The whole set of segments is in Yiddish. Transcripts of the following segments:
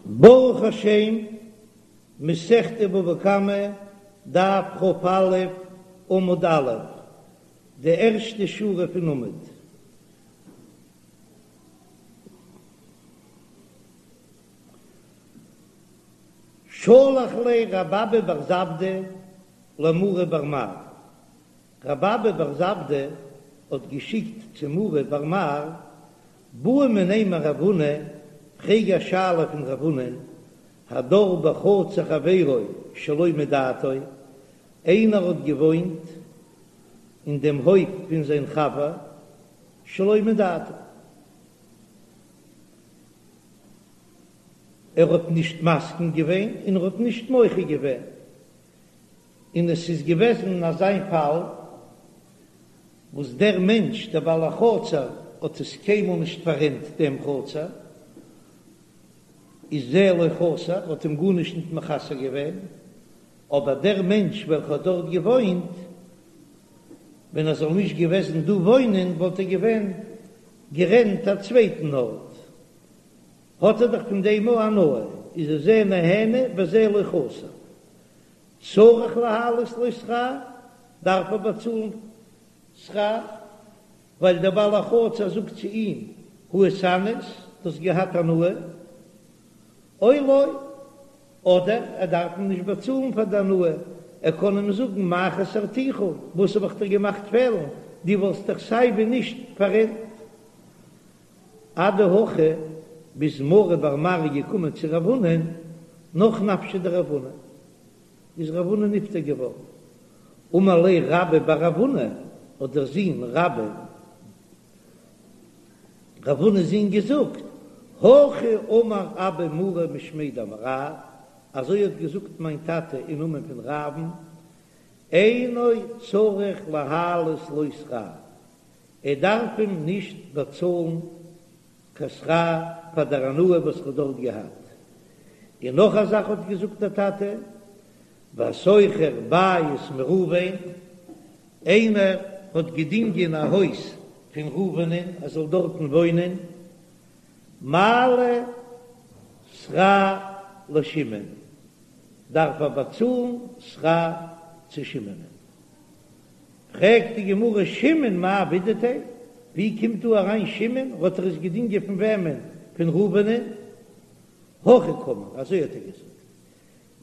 ברוך השם, מסכת בבא קמא, דף כ"א, עמוד א', די ערשטע שורה פון עמוד. שלח ליה רב אבא בר זבדא למרי בר מר, רב אבא בר זבדא האט געשיקט צו מרי בר מר, בעי מיניה מרב הונא, פרעג א שאלה פון רב הונא'ן, הדר בחצר חברו שלא מדעתו, איינער האט געוואוינט אין דעם הויף פון זיין חבר שלא מדעתו, ער האט נישט מסכים געווען און ער האט נישט מוחה געווען, און עס איז געוועזן אזא פאל וואס דער מענטש דער בעל החצר האט עס קיינמאל נישט פאררענט דעם חצר, איז זה לא חסר האט אים גארנישט ניט מחסר געווען, אבער דער מענטש וועלכע האט דארט געוואוינט, ווען ער זאל נישט געוועזן דא וואוינען וואלט ער געווען גערענט א צווייטן ארט, האט ער דאך פון דעם אויך הנאה, איז עס זה נהנה וזה לא חסר. צריך להעלות לו שכר, דארף ער באצאלן שכר, ווייל דער בעל החצר זאגט צו אים, הא איתהנית, דו האסט געהאט הנאה, או לא, אדער ער דארף אים נישט באצאלן פאר די הנאה, ער קען אים זאגן מה חסרתיך, וואס האב איך דיר געמאכט פעלן, דו וואלסט דאך סיי ווי נישט פאררענט. אדהכי ביז מרי בר מר איז געקומען צו רב הונא'ן נח נפשיה דרב הונא, איז רב הונא נפטר געווארן. אמר ליה רבה בר רב הונא, האט דער זון רבה, רב הונא'ס זון געזאגט, הכי אמר אבא מרי משמיה דרב, אזוי האט געזאגט מיין טאטע אין נאמען פון רב'ן, אינו צריך להעלות לו שכר, ער דארף אים נישט באצאלן קיין שכר פאר דער הנאה וואס ער האט דארט געהאט. און נאך א זאך האט געזאגט דער טאטע, והשוכר בית מראובן, איינער האט געדינגען א הויז פון ראובנ'ען ער זאל דארטן וואוינען, מעלה שכר לשמעון, דארף ער באצאלן שכר צו שמעונ'ען. פרעגט די גמרא שמעון מאי עבידתיה, ווי קומט דא אריין שמעון, האט ער עס געדינגען פון וועמען? פון ראובנ'ען? הכי קאמר, אזוי האט ער געזאגט,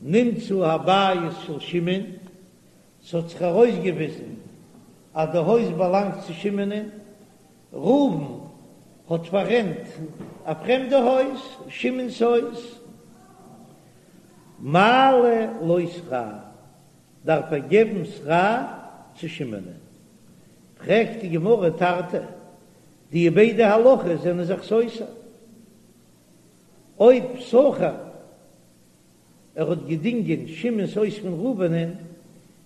נמצא הבית של שמעון, ס'האט זיך ארויסגעוויזן אז די הויז באלאנגט צו שמעונ'ען, ראובן האט פאררענט א פרעמדע הויז, שמעון'ס הויז, מעלה לו שכר, דארף ער געבן שכר צו שמעונ'ען. פרעגט די גמרא תרתי, די ביידע הלכות זענען זיך סותר. אויב שכר ער האט געדינגען שמעון'ס הויז פון ראובנ'ען,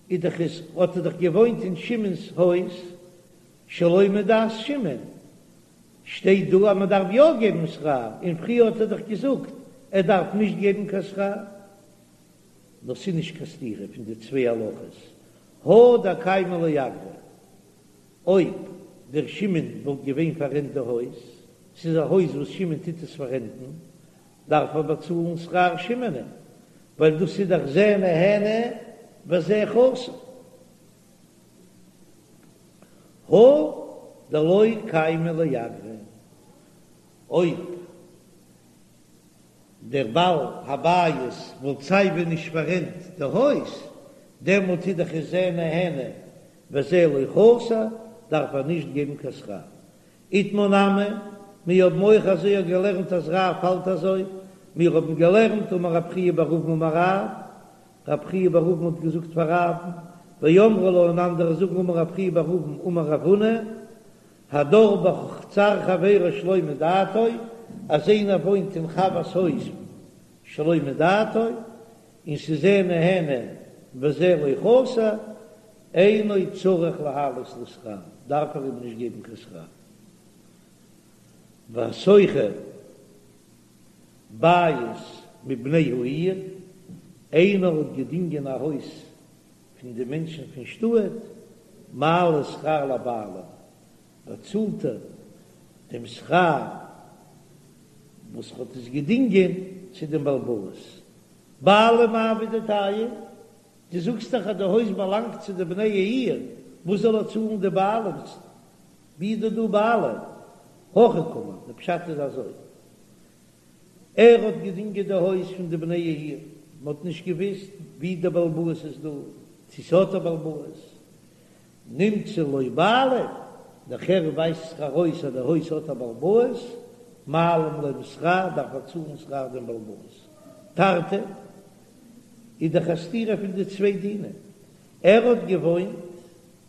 איז דאך עס האט ער דאך געוואוינט אין שמעון'ס הויז שלא מדעת שמעון, שטייט דא אז מען דארף יא געבן שכר, און פריער האט ער דאך געזאגט ער דארף נישט געבן קיין שכר. נאר ס'איז נישט קיין סתירה פון די צוויי הלכות, הא דקיימא לאגרא, אויב דער שמעון וואלט געווען פאררענט די הויז, ס'איז א הויז וואס שמעון טוט עס פאררענטן, דארף ער באצאלן שכר שמעונ'ען, ווייל דאס איז דאך זה נהנה וזה חסר. הא דלא קיימא לאגרא, אויב דער בעל הבית וואלט סייווי נישט פאררענט די הויז, דעמאלט איז דאך עס זה נהנה וזה לא חסר, דארף ער נישט געבן קיין שכר. איתמר נמי, מיר האבן אויך אזוי געלערנט אז רב האלט אזוי, מיר האבן געלערנט אמר רב חייא בר אבין אמר רב, רב חייא בר אבין האט געזאגט פאר רב'ן, ואמרי לה און אנדערע זאגן אמר רב חייא בר אבין אמר רב הונא, הדר בחצר חברו שלא מדעתו, אז איינער וואוינט אין חבר'ס הויז שלא מדעתו, און ס'איז זה נהנה וזה לא חסר, אינו צריך להעלות לו שכר, דארף ער אים נישט געבן קיין שכר. והשוכר בית מבני העיר, איינער האט געדינגען א הויז פון די מענטשן פון שטאט, מעלה שכר לבעלים, באצאלט ער דעם שכר וואס האט עס געדינגען. צו דעם בעל הבית. בעלים מאי עבידתייהו, דו זאגסט דאך אז די הויז באלאנגט צו די בני העיר, וואס זאל ער צאלן די בעלים? ווי איז דא דא בעלים? הכי קאמר, די פשט איז אזוי, ער האט געדינגען די הויז פון די בני העיר, מען האט נישט געוויסט ווי די בעל הבית איז דא, צו ס'האט א בעל הבית, נמצא לו בעלים, נאכער ווייזט זיך ארויס אז די הויז האט א בעל הבית, מעלים להם שכר, דארף ער צאלן שכר דעם בעל הבית. תרתי איז דאך א סתירה פון די צוויי דינים, ער האט געוואוינט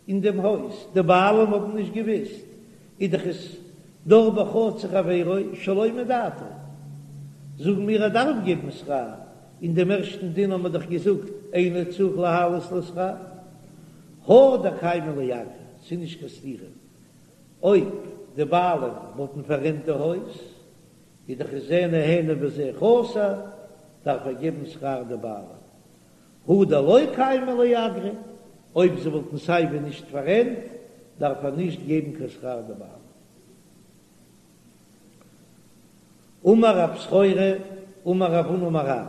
אין דעם הויז, די בעלים האבן נישט געוויסט, איז דאך עס דר בחצר חברו שלא מדעתו, זאגן מיר ער דארף געבן שכר, אין דעם ערשטן דין האבן מיר דאך געזאגט אינו צריך להעלות לו שכר, הא דקיימא ליה אגרא, ס'איז נישט קיין סתירה, אויב די בעלים וואלטן פאררענט די הויז, איז דאך עס זה נהנה וזה חסר, דארף ער געבן שכר די בעלים. הא דלא קיימא ליה אגרא, אויב זיי וואלטן סייווי נישט פאררענט, דארף ער נישט געבן קיין שכר די בעלים. אמר רב סחורה, אמר רב הונא אמר רב,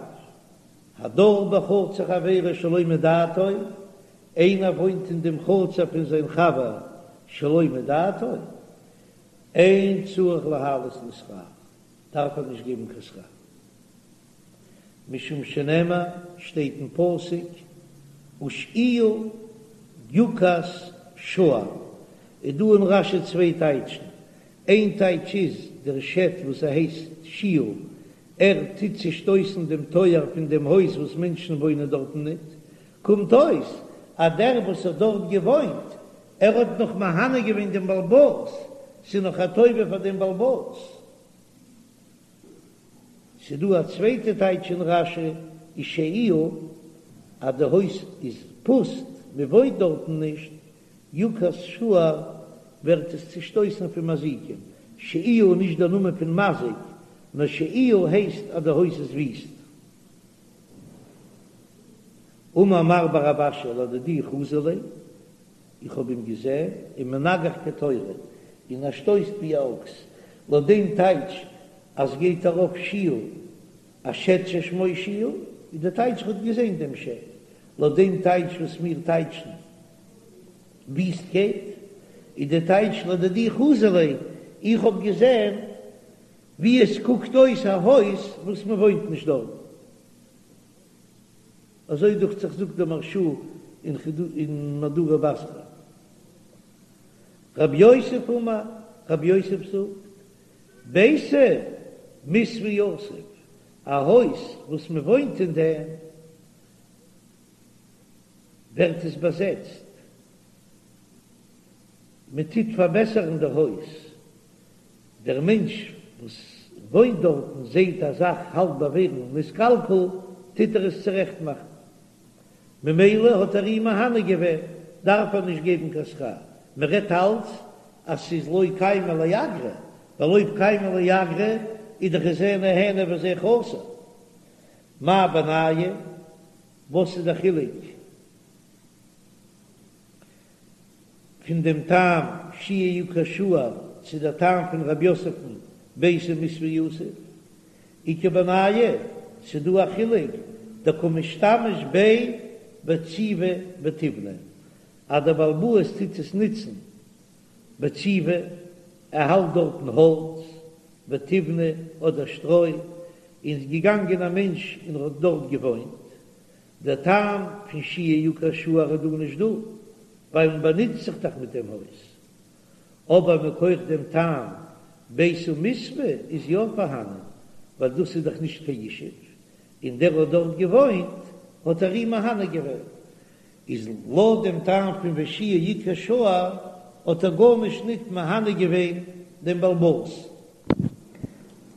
הדר בחצר חברו שלא מדעתו, איינער וואוינט אין דעם חצר פון זיין חבר שלא מדעתו, אין צריך להעלות לו שכר, דארף ער נישט געבן קיין שכר. משום שנאמר, שטייט אין פסוק, ושעיה יוכת שער, איז דא אין רש"י צוויי טייטשן, איין טייטש איז, דער שד וואס ער הייסט שעיה, ער טוט צושטויסן דעם טויער פון דעם הויז וואס מענטשן וואוינען דארטן ניט, קומט אויס אז דער וואס האט דארט געוואוינט, ער האט נאך מהנה געווען דעם בעל הבית, ס'איז נאך א טובה פאר דעם בעל הבית. ס'דא א צווייטע טייטש אין רש"י, ושעיה, אז די הויז איז פוסט, מ'וואוינט דארטן נישט, יוכת שער ווערט עס צושטויסן פון מזיקים, שעיה איז נישט דער נאמען פון מזיק, נאר שעיה הייסט אז די הויז איז וויסט. אמר מר בר רב אשי לדידי חזי ליה, איך האב אים געזען, ומנגח כתורא, און ער שטויסט ווי א אקס, לויט דעם טייטש אז גייט ארויף שעיה, א שד ששמו שעיה, איז די טייטש איך האב געזען דעם שד, לויט דעם טייטש וואס מיר טייטשן וויסטקייט, איז די טייטש לדידי חזי ליה, איך האב געזען ווי עס קוקט אויס א הויז וואס מען וואוינט נישט דארט. אזוי דוכט זיך זאגט דער מהרש"א אין מהדורא בתרא. רב יוסף אמר, רב יוסף זאגט, ביתא מיתבא יתיב, א הויז וואס מען וואוינט אין דעם, ווערט עס באזעצט, מען טוט פארבעסערן די הויז, דער מענטש וואס וואוינט דארטן זעט א זאך האלט ביי ווערן נתקלקל, טוט ער עס צורעכט מאכן, ממילא האט ער אים מהנה געווען, דארף ער נישט געבן קיין שכר, מען רעדט אלץ אז ס'איז לא קיימא ליה אגרא, ווייל אויב קיימא ליה אגרא איז דאך זה נהנה וזה חסר. מאי בינייהו? וואס איז די חילוק פון דעם טעם שעיה יוכת שער צו דער טעם פון רב יוסף'ן ביתא מיתבא יתיב? איכא בינייהו, ס'דא א חילוק דקא משתמש ביה בציבי ותיבנא, אז דער בעל הבית טוט עס נוצן בציבי, ער האלט דארטן האלץ, ותיבנא אדער שטרוי, און איז געגאנגען א מענטש און האט דארט געוואוינט, דער טעם פון שעיה יוכת שער איז דא נישט דא, ווייל מען באנוצט זיך דאך מיט דעם הויז. אבער מכח דעם טעם ביתא מיתבא איז יא פארהאנען, ווייל דאס איז דאך נישט קיין ישוב, און דער האט דארט געוואוינט האט ער אים מהנה געווען, איז לויט דעם טעם פון ושעיה יוכת שער האט ער גארנישט ניט מהנה געווען דעם בעל הבית.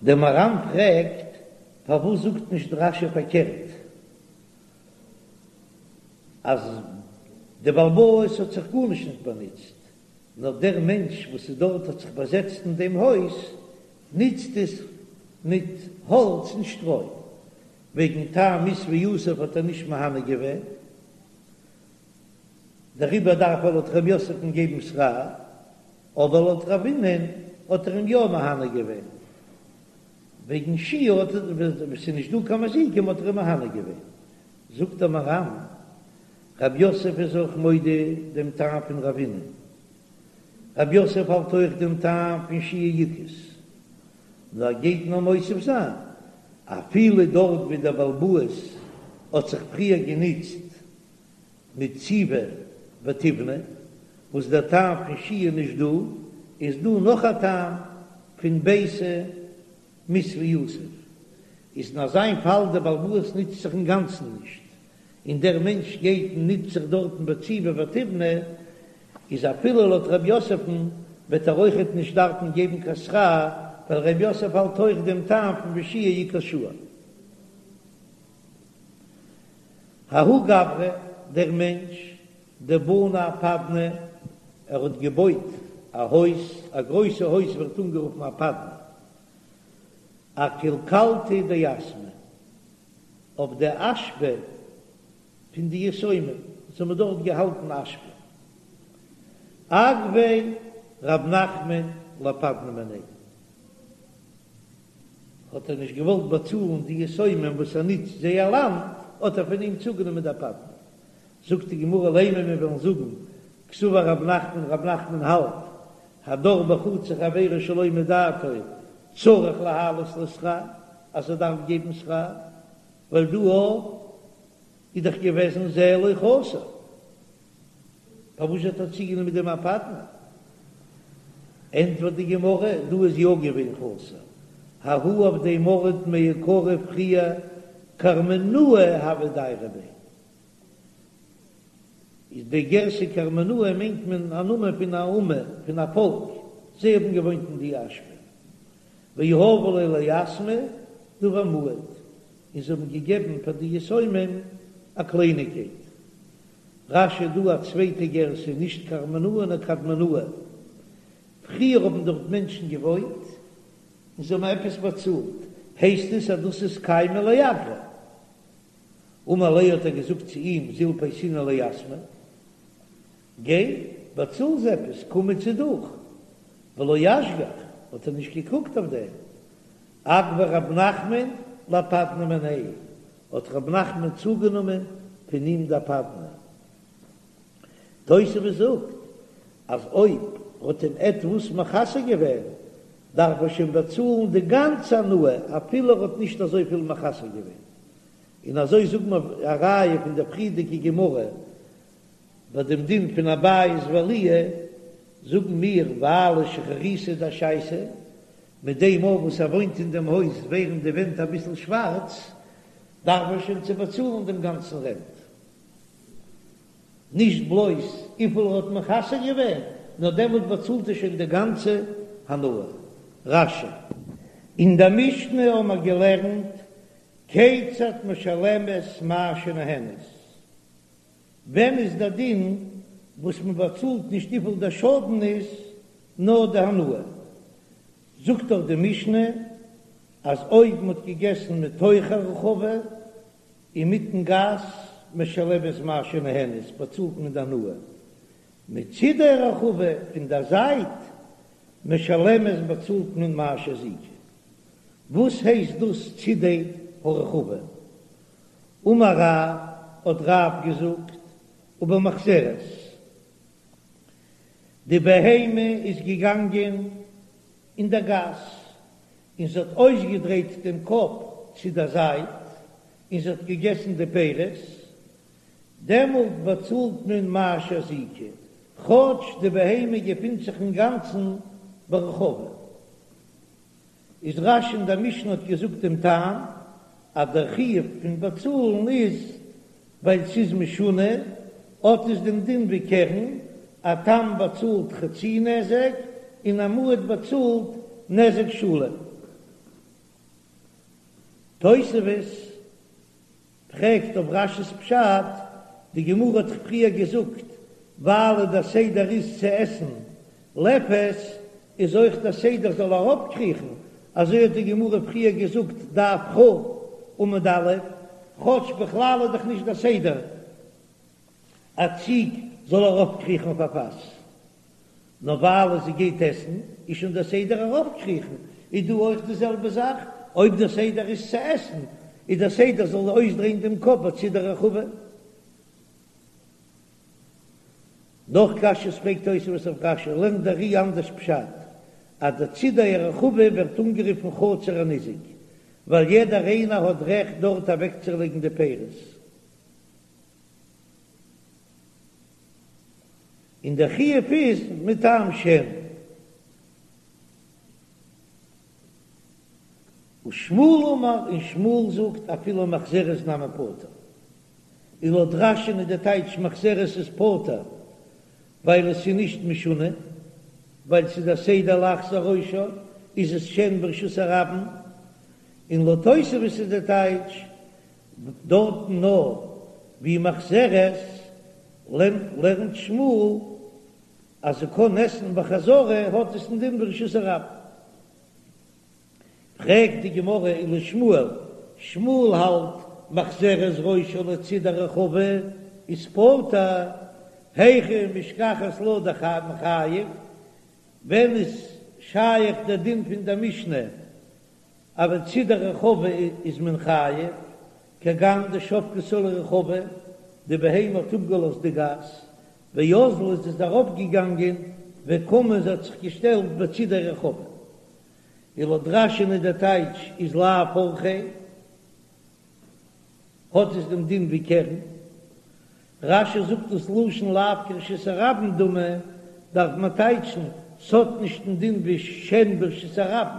דער מהר"ם פרעגט, פארוואס זאגט נישט רש"י פארקערט אז דער בעל הבית האט זיך גארנישט ניט באנוצט, נאר דער מענטש וואס איז דארט האט זיך באזעצט אין דעם הויז נוצט עס מיט האלץ און שטרוי, וועגן טעם מיתבא יתיב האט ער נישט מהנה געווען, דעריבער דארף ער לויט ר' יוסף'ן געבן שכר, אבער לויט רב הונא'ן האט ער אים יא מהנה געווען. וועגן שהייה האט ער, ווען ס'איז נישט דא קיין מזיקים האט ער אים מהנה געווען. זאגט דער מהר"ם, רב יוסף איז אויך מודה דעם טעם פון רבינא. רב יוסף האלט אויך דעם טעם פון שהייה עיקרית, נאר ער גייט נאר מוסיף זיין, אפילו דארט ווי דער בעל הבית האט זיך פריער גענוצט מיט ציבי ותיבנא, וואס דער טעם פון שהייה נישט דא, איז דא נאך א טעם פון ביתא מתיא יתיב, איז אין אזיין פאל דער בעל הבית נוצט זיך אינגאנצן נישט, און דער מענטש גייט און נוצט זיך דארטן בציבי ותיבנא, איז אפילו לויט רב יוסף'ן וועט ער אויכעט נישט דארפן געבן קיין שכר, ווייל רב יוסף האלט אויך דעם טעם פון ושהייה עיקר שעה. ההוא גברא, דער מענטש, דבני אפדנא, ער האט געבויט א הויז, א גרויסע הויז ווערט אנגערופן אפדנא, אקילקלתא דיתמי, אויף די אשפה פון די יתומים, זיי האבן דארט געהאלטן אשפה. אגביה רב נחמן לאפדנא מיניה, האט ער נישט געוואלט באצאלן די יתומים וואס ער נוצט זייער לאנד, האט ער פון אים צוגענומען די אפדנא. זאגט די גמרא לימא מיר וועלן זאגן קסבר רב נחמן, רב נחמן האלט הדר בחצר חבירו שלא מדעתו צריך להעלות לו שכר, אז ער דארף געבן שכר, ווייל דא איז דאך געוועזן זה לא חסר, פארוואס האט ער צוגענומען דעם אפדנא? ענטפערט די גמרא, דא איז יא געווען חסר, ההוא אויף דעם ארט מעיקרא פריער קרמנאי הוו דיירי ביה, איז די גירסא קרמנאי מיינט מען א נאמען פון א אומה, פון א פאלק, זיי האבן געוואוינט אין די אשפה, ויהבו להו ליתמי דבר מועט, און זיי האבן געגעבן פאר די יתומים א קלייניגקייט. רש"י דא א צווייטע גירסא, נישט קרמנאי נאר קדמנאי. פריער האבן דארט מענטשן געוואוינט און זיי האבן עפעס באצאלט, הייסט עס אז דאס איז קיימא לאגרא. אמר ליה האט ער געזאגט צו אים זיל פייסינהו ליתמי, גיי באצאל זיי עפעס, קום צו דוך, ולא אשגח, האט ער נישט געקוקט אויף דעם, אגביה רב נחמן לאפדנא מיניה, האט רב נחמן צוגענומען פון אים די אפדנא. תוספות זאגט אז אויב האט אים עטוואס מחסר געווען דארף ער שוין באצאלן די גאנצע הנאה אפילו ער האט נישט אזויפיל מחסר געווען, און אזוי זאגט מען א ראיה פון דער פריערדיגע גמרא ביי דעם דין פון א בית ועליה, זאגן מיר ווייל שחוריתא דאשייתא, מיט דעם אויך וואס ער וואוינט אין דעם הויז ווערן די ווענט אביסל שווארץ, דארף ער שוין צו באצאלן דעם גאנצן רענט. נישט בלויז וויפיל ער האט מחסר געווען, נאר דעמאלט באצאלט ער שוין די גאנצע הנאה. רש"י. אין דער משנה האבן מיר געלערנט כיצד משלמת מה שנהנית, ווען איז דער דין וואס מען באצאלט נישט וויפיל דער שאדן איז, נאר די הנאה. זאגט דאך די משנה אז אויב מען האט געגעסן מתוך הרחבה, אינמיטן גאס, משלמת מה שנהנית, באצאלט מען די הנאה. מצידי הרחבה, פון דער זייט, משלמת באצאלט מען מה שהזיקה. וואס הייסט דאס צידי הרחבה? אמר רב, האט רב געזאגט, ובמחזרת, די בהמה איז געגאנגען אין דער גאס, און זי האט אויסגעדרייט דעם קאפ צו דער זייט, און זי האט געגעסן די פירות, דעמאלט באצאלט מען מה שהזיקה, כאטש די בהמה געפינט זיך אינגאנצן ברחבה. איז רש"י אין דער משנה האט געזאגט דעם טעם אז דער חיוב פון באצאלן איז ווייל ס'איז משונה, האט עס דעם דין ווי קרן, א תם באצאלט חצי נזק און א מועד באצאלט נזק שלם. תוספות פרעגט אויף רש"י'ס פשט, די גמרא האט דאך פריער געזאגט ווייל דער סדר איז צו עסן לפת, איז אויך דער סדר זאל אראפקריכן, אזוי האט די גמרא פריער געזאגט דף כ' עמוד א', כאטש בכלל איז דאך נישט דער סדר א ציג זאל ארויפקריכן אויף א פאס. נאר ווייל זי גייט עסן איז שוין דער סדר ארויפקריכן, איז דא אויך די זעלבע זאך? אויב דער סדר איז צו עסן, איז דער סדר זאל אויסדרייען דעם קאפ בצידי הרחבה. נאך קשיות פרעגט תוספות אויף רש"י, לערנט דער ר"י אנדערש פשט, אז די צידי הרחבה ווערט אנגערופן חצר הניזק, ווייל יעדער איינער האט רעכט דארט אוועקצולייגן די פירות. און דער חיוב איז מטעם שן. ושמואל אמר, און שמואל זאגט אפילו מחזרת נמי פטור. און לויט רש"י'ן איז די טייטש מחזרת איז פטור ווייל עס איז נישט משונה, ווייל ס'איז א סדר להחזיר ראשה איז עס שן ברשות הרבים, און לויט תוספות איז די טייטש דארטן נאר ווי מחזרת לערנט שמואל אז זי קען עסן בחזרה האט עס א דין ברשות הרבים. פרעגט די גמרא ולשמואל, שמואל האלט מחזרת ראשה לצידי הרחבה איז פטור, היכי משכחת לה דמחייב, ווען איז שייך דער דין פון דער משנה אז בצידי הרחבה איז מען חייב, כגון דשבקתה לרחבה, די בהמה האט אפגעלאזט די גאס, ואזלה איז עס אראפגעגאנגען וקמה זי האט זיך געשטעלט בצידי הרחבה. און לויט רש"י'ן איז דער טייטש איז לאו אורחיה, האט עס דעם דין ווי קרן. רש"י זאגט דאס לשון לאו כרשות הרבים דמי, דארף מען טייטשן, ס'האט נישט דעם דין ווי שן ברשות הרבים,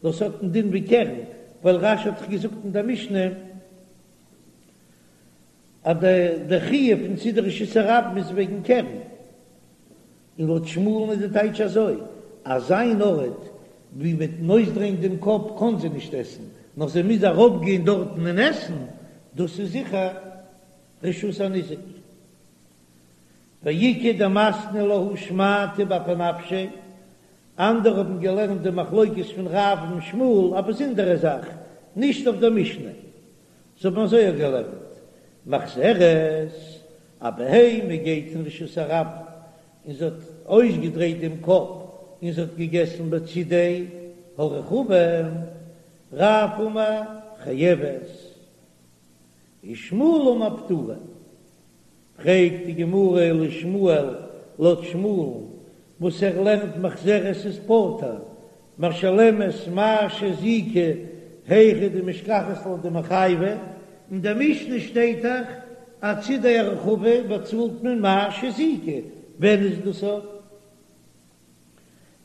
נאר ס'האט דעם דין ווי קרן, ווייל רש"י האט דאך געזאגט אין דער משנה אז די חיוב פון צידי רשות הרבים איז וועגן קרן. און לויט שמואל'ן איז די טייטש אזוי, אז אן ארט ווי מיטן אויסדרייען דעם קאפ קען זי נישט עסן, נאר זי מוז אראפגיין דארטן און עסן, דאס איז זיכער רשות הניזק. ואיכא דמתני להא שמעתא באפי נפשיה, אנדערע האבן געלערנט די מחלוקת פון רב און שמואל א באזונדערע זאך, נישט אויף דער משנה. זיי האבן אזוי געלערנט, מחזרת, א בהמה גייט אין רשות הרבים און זי האט אויסגעדרייט דעם קאפ און זי האט געגעסן בצידי הרחבה, רב אמר חייבת, ושמואל אמר פטורה. פרעגט די גמרא ולשמואל, לויט שמואל'ן וואס ער לערנט מחזרת איז פטור, משלמת מה שהזיקה היכא דמשכחת לה דמיחייבא, אין דער משנה שטייט דאך אז צידי הרחבה באצאלט מען מה שהזיקה, ווען איז דאס אויף?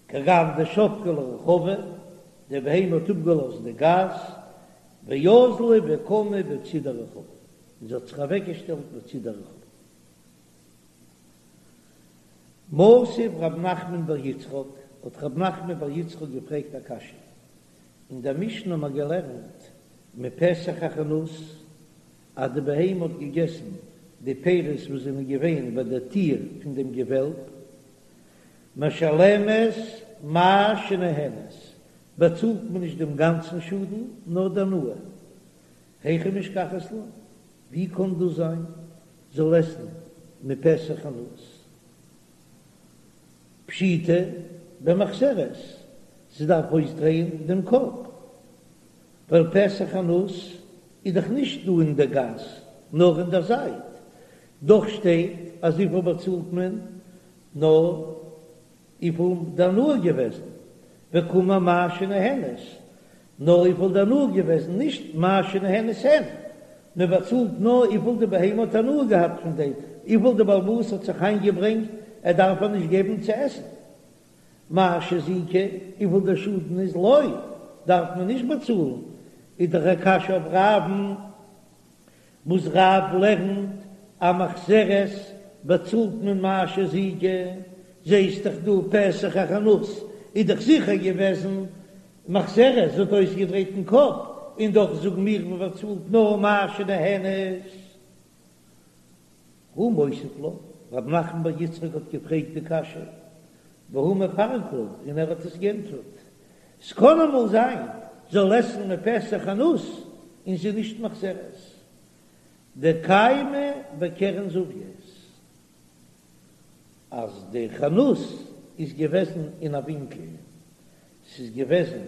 כגון דשבקה לרחבה, די בהמה האט אפגעלאזט די גאס, ואזלה וקמה בצידי הרחבה, און זי האט זיך אוועקגעשטעלט בצידי הרחבה. מתיב רב נחמן בר יצחק, האט רב נחמן בר יצחק געפרעגט א קשיא, אין דער משנה האט מען געלערנט מפתח החנות, אז די בהמה האט געגעסן די פירות וואס זענען געווען ביי דער טיר פון דעם געוועלב, משלמת מה שנהנית, באצאלט מען נישט דעם גאנצן שאדן, נאר די הנאה. היכי משכחת לה, ווי קען דאס זיין, זאל עסן מפתח חנות? פשיטא במחזרת, זי דארף אויסדרייען דעם קאפ, ווייל פתח חנות איז דאך נישט דא אין דער גאס, נאר אין דער זייט, דאך שטייט אז וויפיל באצאלט מען נאר וויפיל די הנאה געוועזן, וקאמר מה שנהנית, נאר וויפיל די הנאה געוועזן, נישט מה שנהנית הן, מען באצאלט נאר וויפיל די בהמה האט הנאה געהאט פון דעם, וויפיל די בעל הבית האט זיך איינגעברענגט, ער דארף איר נישט געבן צו עסן. מה שהזיקה, וויפיל דער שאדן איז לא, דארף מען נישט באצאלן, איז דאך א קשיא אויף רב'ן. וואס רב לערנט אז מחזרת באצאלט מען מה שהזיקה, זעהסט דאך דא פתח החנות איז דאך זיכער געוועזן מחזרת, זי האט אויסגעדרייט דעם קאפ, און דאך זאגן מיר מען באצאלט נאר מה שנהנית. הוא מותיב לה, רב נחמן בר יצחק האט געפרעגט די קשיא, והוא מפרק לה, און ער האט עס גענטפערט, ס'קען אמאל זיין זאל עסן מפתח חנות און זי נישט מחזרת דקיימא בקרן זווית, אז די חנות איז געוועזן אין א ווינקל, ס'איז געוועזן.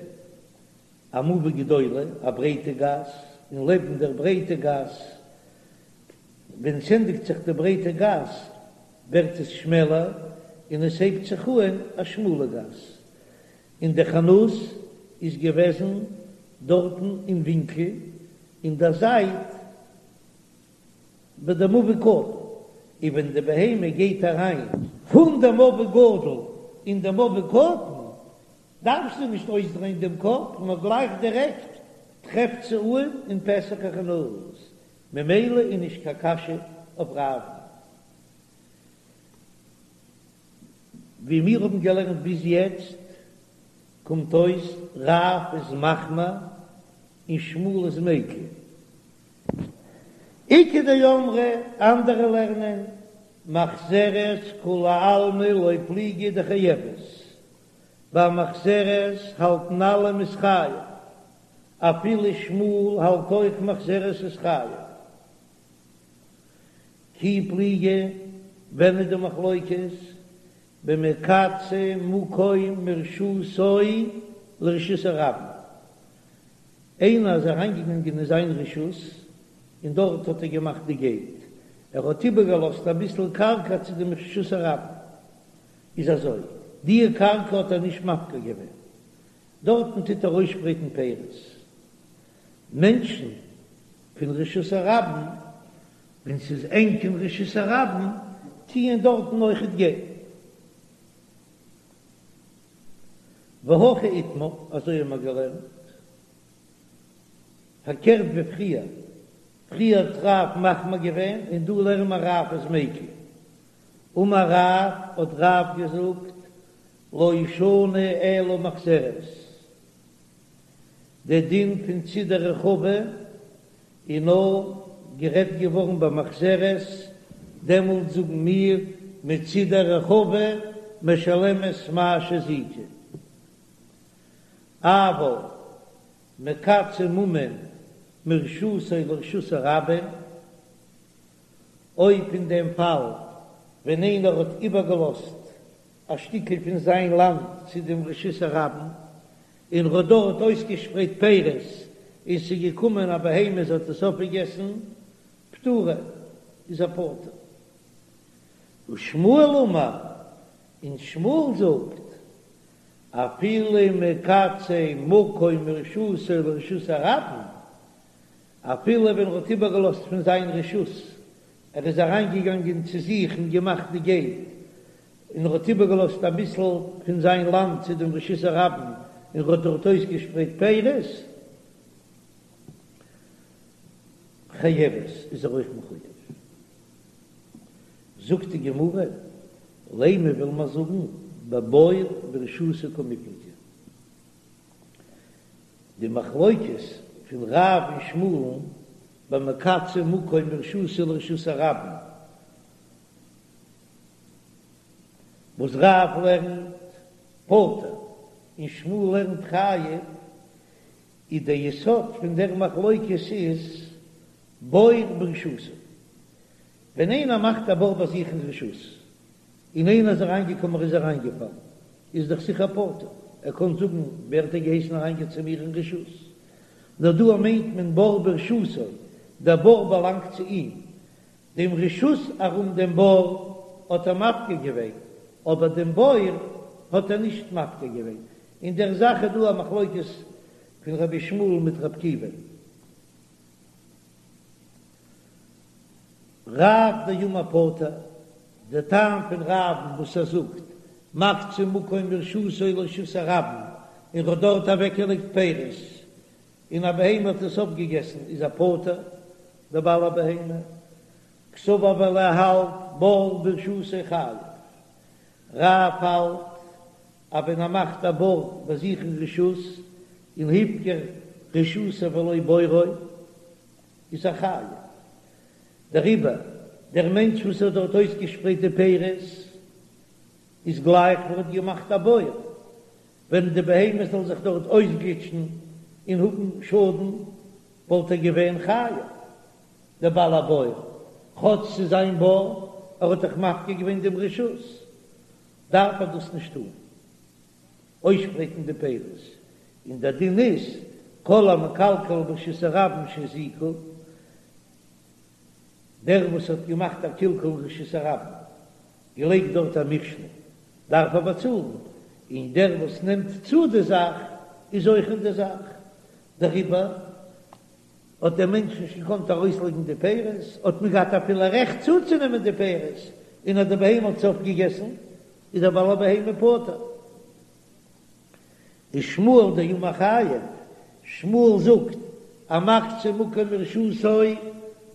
א מבוי גדולה, א ברייטע גאס, און לעבן דער ברייטע גאס, ווען ס'ענדיגט זיך די ברייטע גאס, ווערט עס שמעלער, און עס הייבט זיך אהן א שמאלע גאס, און די חנות איז געוועזן דארטן אין ווינקל, אין דער זייט ביי די מבוי קטן, און ווען די בהמה גייט אריין פון די מבוי גדול אין די מבוי קטן, דארף זי נישט אויסדרייען דעם קאפ, נאר גלייך דירעקט טרעפט זי אהן אין פתח החנות, ממילא איז נישט קיין קשיא אויף רב'ן. ווי מיר האבן געלערנט ביז יעצט, קומט אויס רב איז מחמיר און שמואל איז מיקל. איכא דאמרי, אנדערע לערנען, מחזרת כולי עלמא לא פליגי דחייבת, ביי מחזרת האלטן אלע מ'איז חייב, אפילו שמואל האלט אויך מחזרת איז חייב. כי פליגי, ווען איז די מחלוקת? במקצה מקום מרשותו לרשות הרבים, איינער איז אריינגעגאנגען אין זיין רשות און דארט האט ער געמאכט די געיט, ער האט איבערגעלאזט אביסל קרקע צו דעם רשות הרבים, איז אזוי, די קרקע האט ער נישט מפקיר געווען, דארטן טוט ער אויסשפרייטן פירות, מענטשן פון רשות הרבים, ווען ס'איז ענג אין רשות הרבים, טוען דארטן אויכעט גיין. והכי איתמר, אזוי האבן מיר געלערנט, פארקערט ווי פריער, פריער האט רב מחמיר געווען און דא לערנען מיר רב איז מיקל. אמר רב, האט רב געזאגט, לא שנו אלא מחזרת, דער דין פון צידי רחבה איז נאר גערעדט געווארן ביי מחזרת, דעמאלט זאגן מיר מצידי רחבה משלמת מה שהזיקה, אבל מקצה ממון מרשותו לרשות הרבים, אויב אין דעם פאל ווען איינער האט איבערגעלאזט א שטיקל פון זיין לאנד צו דעם רשות הרבים, און ר'האט דארט אויסגעשפרייט פירות, און ס'איז געקומען א בהמה זי האט עס אויפגעגעסן, פטורה, איז ער פטור. ושמואל אמר, און שמואל זאגט, אפילו מקצה מקום מרשותו לרשות הרבים, אפילו ווען ר'האט איבערגעלאזט פון זיין רשות, ער איז אריינגעגאנגען צו זיך און געמאכט די געיט, און ער האט איבערגעלאזט אביסל פון זיין לאנד צו דעם רשות הרבים, און ער האט דארט אויסגעשפרייט פירות, חייבת, איז ער אויך מחויב. זאגט די גמרא, לימא וויל מען זאגן בבור ברשותו קמיפלגי. די מחלוקת פון רב און שמואל'ן במקצה מקום מרשותו לרשות הרבים, וואס רב לערנט פטור און שמואל לערנט חייב, איז דער יסוד פון דער מחלוקת איז בור ברשותו. ווען איינער מאכט א בור ביי זיך אין רשות, און איינער איז אריינגעקומען ער איז אריינגעפאלן, איז דאך זיכער פטור, ער קען זאגן ווער האט דיר געהייסן אריינגיין צו מיר אין רשות? נאר דא מיינט מען בור ברשותו, דער בור באלאנגט צו אים, דעם רשות ארום דעם בור האט ער מפקיר געווען, אבער דעם בור האט ער נישט מפקיר געווען. אין דער זאך איז דא א מחלוקת פון רבי ישמעאל מיט רבי עקיבא. רב דאמר פטור, דער טעם פון רב'ן וואס ער זאגט מקצה מקום מרשותו לרשות הרבים און ר'האט דארט אוועקגעלייגט פירות און א בהמה האט עס אויפגעגעסן איז ער פטור, דער בעל הבהמה, קסבר ווייל ער האלט בור ברשותו חייב, רב האלט אז ווען ער מאכט א בור ביי זיך אין רשות און הפקיר רשותו ולא בורו איז ער חייב, דעריבער דער מענטש וואס האט דארט אויסגעשפרייט די פירות איז גלייך ווי ער האט געמאכט א בור, ווען די בהמה זאל זיך דארט אויסגליטשן און האבן שאדן, וואלט ער געווען חייב, דער בעל הבור, כאטש ס'איז זיין בור, ער האט דאך מפקיר געווען דעם רשות, דארף ער דאס נישט טון, אויסשפרייטן די פירות, און דער דין איז. כל המקלקל ברשות הרבים שהזיקו, דער וואס האט געמאכט א קלקול אין רשות הרבים, געלייגט דארט א מכשול, דארף ער באצאלן, און דער וואס נעמט צו די זאך איז אויך אין די זאך, דעריבער האט דער מענטש נישט געקאנט ארויסלייגן די פירות, האט מען געהאט אפילו רעכט צוצונעמען די פירות, און אז די בהמה האט עס אויפגעגעסן, איז דער בעל הבהמה פטור. ושמואל דאמר חייב, שמואל זאגט, המקצה מקום מרשותו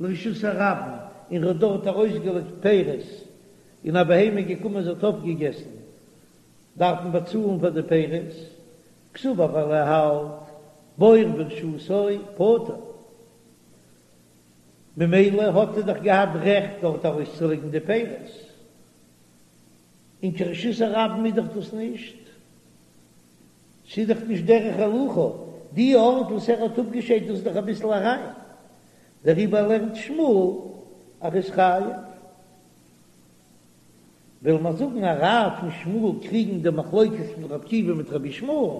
לרשות הרבים, און ער האט דארט ארויסגעלייגט פירות, און א בהמה איז געקומען זי האט אויפגעגעסן, דארף מען באצאלן פאר די פירות, קסבר ווייל ער האלט בור ברשותו פטור, ממילא האט ער דאך געהאט רעכט דארט ארויסצולייגן די פירות, און קיין רשות הרבים איז דאך דאס נישט, ס'איז דאך נישט דרך הילוכה, די ארט וואס ער האט אפגעשיידט דאס איז דאך אביסל אריין, דעריבער לערנט שמואל אז ער איז חייב. וויל מען זאגן אז רב און שמואל קריגן די מחלוקת פון רבי עקיבא מיט רבי ישמעאל,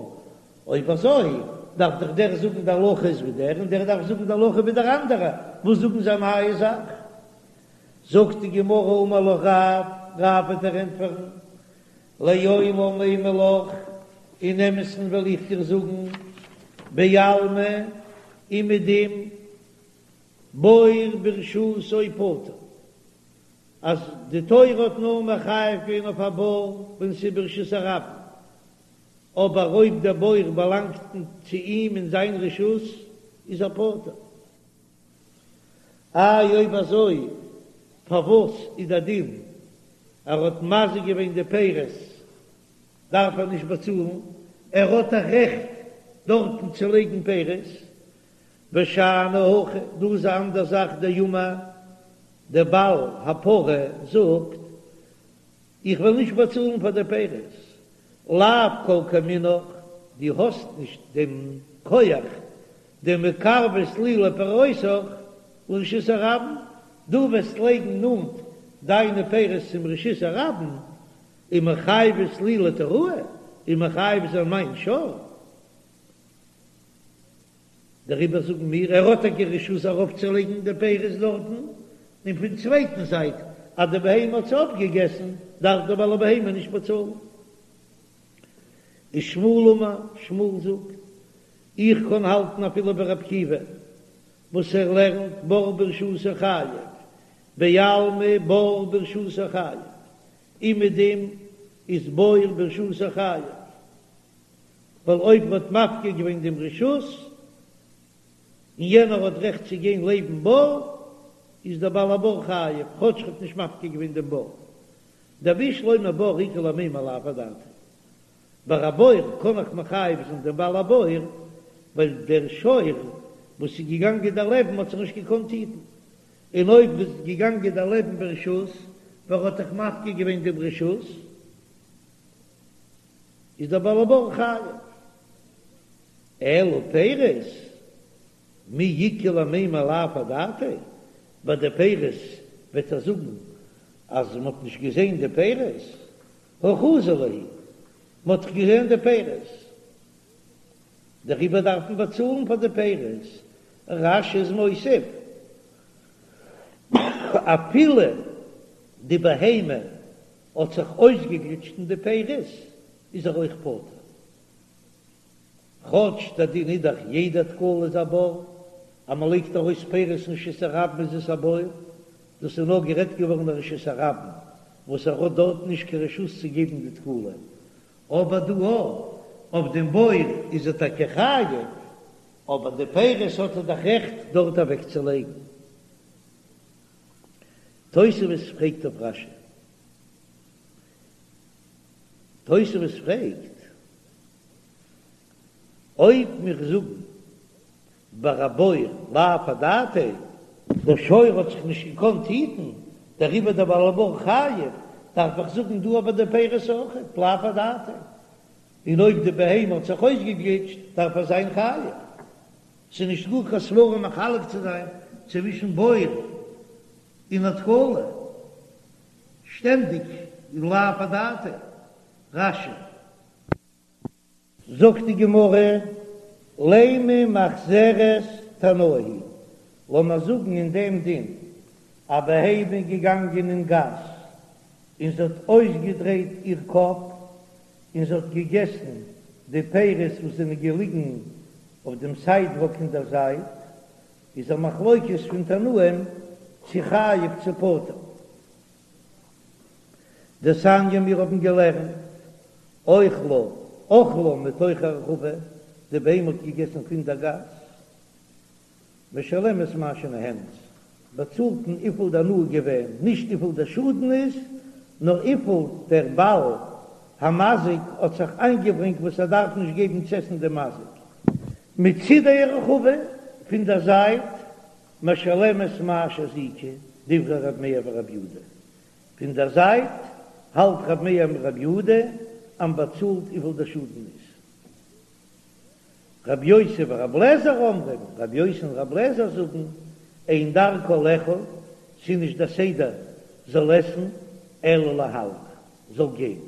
אויב אזוי דארף דאך דער זאגן די הלכה איז ווי דער און דער דארף זאגן די הלכה ווי דער אנדערע, וואס זאגן זיי א נייע זאך? זאגט די גמרא אמר לך רב, רב וועט דיר ענטפערן, לעולם אימא לך, אין אמת'ן וועל איך דיר זאגן, בעלמא אומעדום בור ברשותו פטור, אז די תורה האט נאר מחייב געווען אויף א בור ווען ס'איז ברשות הרבים, אבער אויב דער בור באלאנגט צו אים אין זיין רשות איז ער פטור. איי אויב אזוי פארוואס איז דער דין ער האט מזיק געווען די פירות דארף ער נישט באצאלן, ער האט א רעכט דארטן צו לייגן פירות, ושאני הכא, דא איז א אנדער זאך דאמר דער בעל הפרה זאגט איך וועל נישט באצאלן פאר די פירות, לאו כל כמינך, דו האסט נישט דעם כח דמקרבת לי לפירותיך לרשות הרבים, דו וועסט לייגן נאנט דיינע פירות צום רשות הרבים, ומחייבת לי לתוראי, און מחייב זיין מיין שור. דעריבער זאגן מיר, ער האט טאקע רשות ארויפצולייגן די פירות דארטן, און פון צווייטן זייט אז די בהמה האט עס אויפגעגעסן, דארף דער בעל הבהמה נישט באצאלן. ושמואל אמר, שמואל זאגט, איך קען האלטן אפילו ווי רבי עקיבא וואס ער לערנט בור ברשותו חייב, בעלמא בור ברשותו חייב, אומעדום איז בור ברשותו חייב. ווייל אויב מ'האט מפקיר געווען דעם רשות, און יענער האט רעכט צו גיין לעבן בור, איז דער בעל הבור חייב, כאטש ער האט נישט מפקיר געווען דעם בור. דבשלמא בור איכא למימר לאו אדעתיה. ביי א בור קען איך מחייב זיין דעם בעל הבור, ווייל דער שור וואס איז געגאנגען דערלעבן האט זיך נישט געקאנט היטן, און אויב איז געגאנגען דערלעבן ברשות, ווייל ער האט דאך מפקיר געווען דעם רשות, איז דער בעל הבור חייב. אלא פירות, מי איכא למימר לאו אדעתיה, ביי די פירות וועט ער זאגן אז מען האט נישט געזען די פירות, הא חזי להו, מען האט דאך געזען די פירות, דעריבער דארף מען באצאלן פאר די פירות. רש"י איז מוסיף, אפילו די בהמה האט זיך אויסגעגליטשט אין די פירות, איז ער אויך פטור. כאטש דער דין איז דאך יעדע תקלה איז א בור, אז מען לייגט ארויס פירות אין רשות הרבים איז עס א בור, דאס איז נאר גערעדט געווארן אין רשות הרבים וואס ער האט דארט נישט קיין רשות צו געבן די תקלה, אבער דא אויף דעם בור איז ער טאקע חייב, אבער די פירות האט ער דאך רעכט דארט אוועקצולייגן. תוספות פרעגט אויף רש"י. תוספות פרעגט, אויב מיר זאגן ביי א בור לאו אדעתיה, דער שור האט זיך נישט געקאנט היטן, דעריבער דער בעל הבור חייב, דארף איך זאגן דא אבער די פירות אויכעט לאו אדעתיה, און אויב די בהמה האט זיך אויסגעגליטשט דארף ער זיין חייב. ס'איז נישט גאר קיין סברא מחלק צו זיין צווישן בור און א תקלה, שטענדיג איז לאו אדעתיה. רש"י. זאגט די גמרא. לימא מחזרת תנאי היא, לאמיר זאגן אין דעם דין, א בהמה איז געגאנגען אין גאס און זי האט אויסגעדרייט איר קאפ און זי האט געגעסן די פירות וואס זענען געליגן אויף דעם סיידוואק אין דער זייט, איז א מחלוקת פון תנאים צו חייב צו פטור. דתניא מיר האבן געלערנט אוכלה אכלה מתוך הרחבה, די בהמה האט געגעסן פון דער גאס, משלמת מה שנהנית, באצאלט מען וויפיל די הנאה געווען, נישט וויפיל דער שאדן איז, נאר וויפיל דער בעל המזיק האט זיך איינגעברענגט וואס ער דארף נישט געבן צו עסן דעם מזיק. מצידי הרחבה, פון דער זייט, משלמת מה שהזיקה, דברי ר' מאיר ור' יהודה, פון דער זייט האלט ר' מאיר און ר' יהודה אז מ'באצאלט וויפיל דער שאדן איז. רבי יוסי ורבי אליעזר אומרים, רבי יוסי און רבי אליעזר זאגן, אין דרכה לאכול, ס'איז נישט דער סדר זאל עסן, אלא להלך, זאל גיין.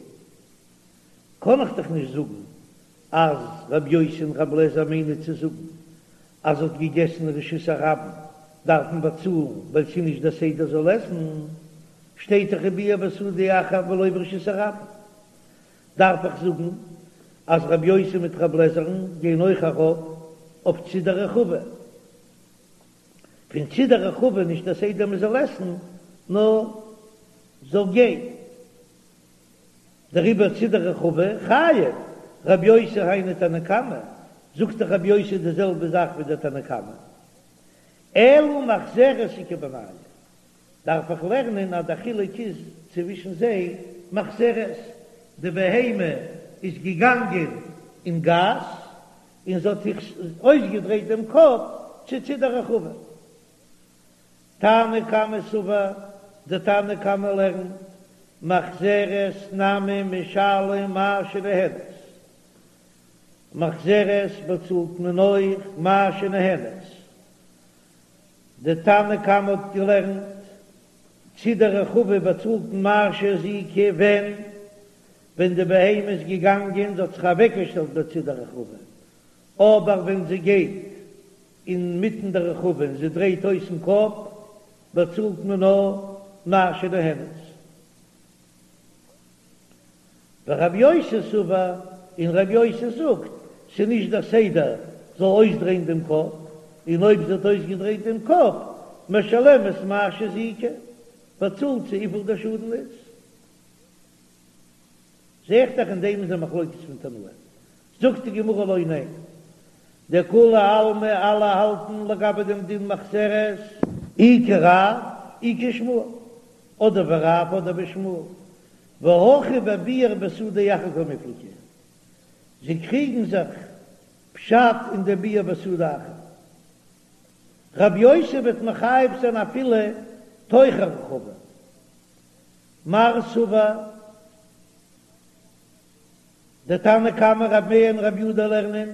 קען איך דאך נישט זאגן אז רבי יוסי און רבי אליעזר מיינען צו זאגן אז האט געגעסן רשות הרבים דארף מען באצאלן ווייל ס'איז נישט דער סדר זאל עסן, שטייט דאך ובער בשדה אחר ולא ברשות הרבים. דארף איך זאגן אז רבי יוסי מיט רבי אליעזר'ן גייען אויך ארויף אויף צידי רחבה? פון צידי רחבה נישט דער סדר מען זאל עסן נאר זאל גיין, דעריבער צידי רחבה חייב, רבי יוסי היינו תנא קמא, זאגט דאך רבי יוסי די זעלבע זאך ווי דער תנא קמא, אלא מחזרת איכא בינייהו, דארף איך לערנען אז דער חילוק איז צווישן זיי מחזרת, די בהמה איז געגאנגען אין גאס און זי האט זיך אויסגעדרייט דעם קאפ צו צידי רחבה. תנא קמא סבר, די תנא קמא לערנט, מחזרת נמי משלם מה שנהנית, מחזרת באצאלט מען אויך מה שנהנית, די תנא קמא האט געלערנט, צידי רחבה באצאלט מען מה שהזיקה ווען ווען די בהמה איז געגאנגען זי האט זיך אוועקגעשטעלט בצידי רחבה, אבער ווען זי גייט אינמיטן די רחבה און זי דרייט אויסן קאפ באצאלט מען נאר מה שנהנית. ורבי יוסי סבר, און רבי יוסי זאגט, ס'איז נישט דער סדר זאל אויסדרייען דעם קאפ, און אויב זי האט אויסגעדרייט דעם קאפ, משלמת מה שהזיקה, באצאלט זי וויפיל דער שאדן איז. זע איך דאך אין דעם איז א מחלוקת פון תנאים. זאגט די גמרא לא, ניין, דכולי עלמא אלע האלטן לגבי דעם דין מחזרת, אי כרב אי כשמואל, אדער ווי רב אדער ווי שמואל, והכא בביער בשדה אחר קמיפלגי, זיי קריגן זיך פשט אין די ביער בשדה אחר. רב יוסי וועט מחייב זיין אפילו תוך הרחבה. מר סבר, דער תנא קמא רב מאיר און רב יודא לערנען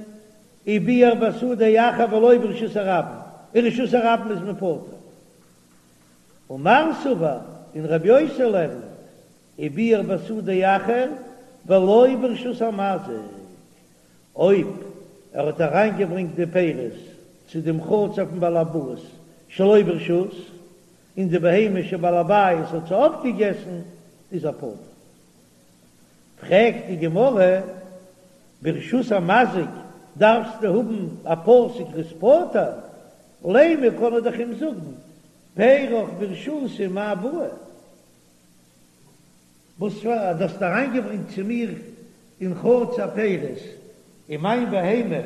וביער בשדה אחר ולא ברשות הרבים, אין רשות הרבים איז מען פטור. ומר סבר, און רבי יוסי לערנט, וביער בשדה אחר ולא ברשות המזיק, אויב ער האט אריינגעברענגט די פירות צו דעם חצר פון בעל הבית שלא ברשות, און די בהמה של בעל הבית האט זיי אויפגעגעסן, איז ער פטור. פרעגט די גמרא, ברשות המזיק דארפסטו האבן א פסוק ער איז פטור, לימא קען ער דאך אים זאגן פירך ברשותי מאי בעי, וואס פאר אז דו האסט אריינגעברענגט צו מיר אין חצר פירות און מיין בהמה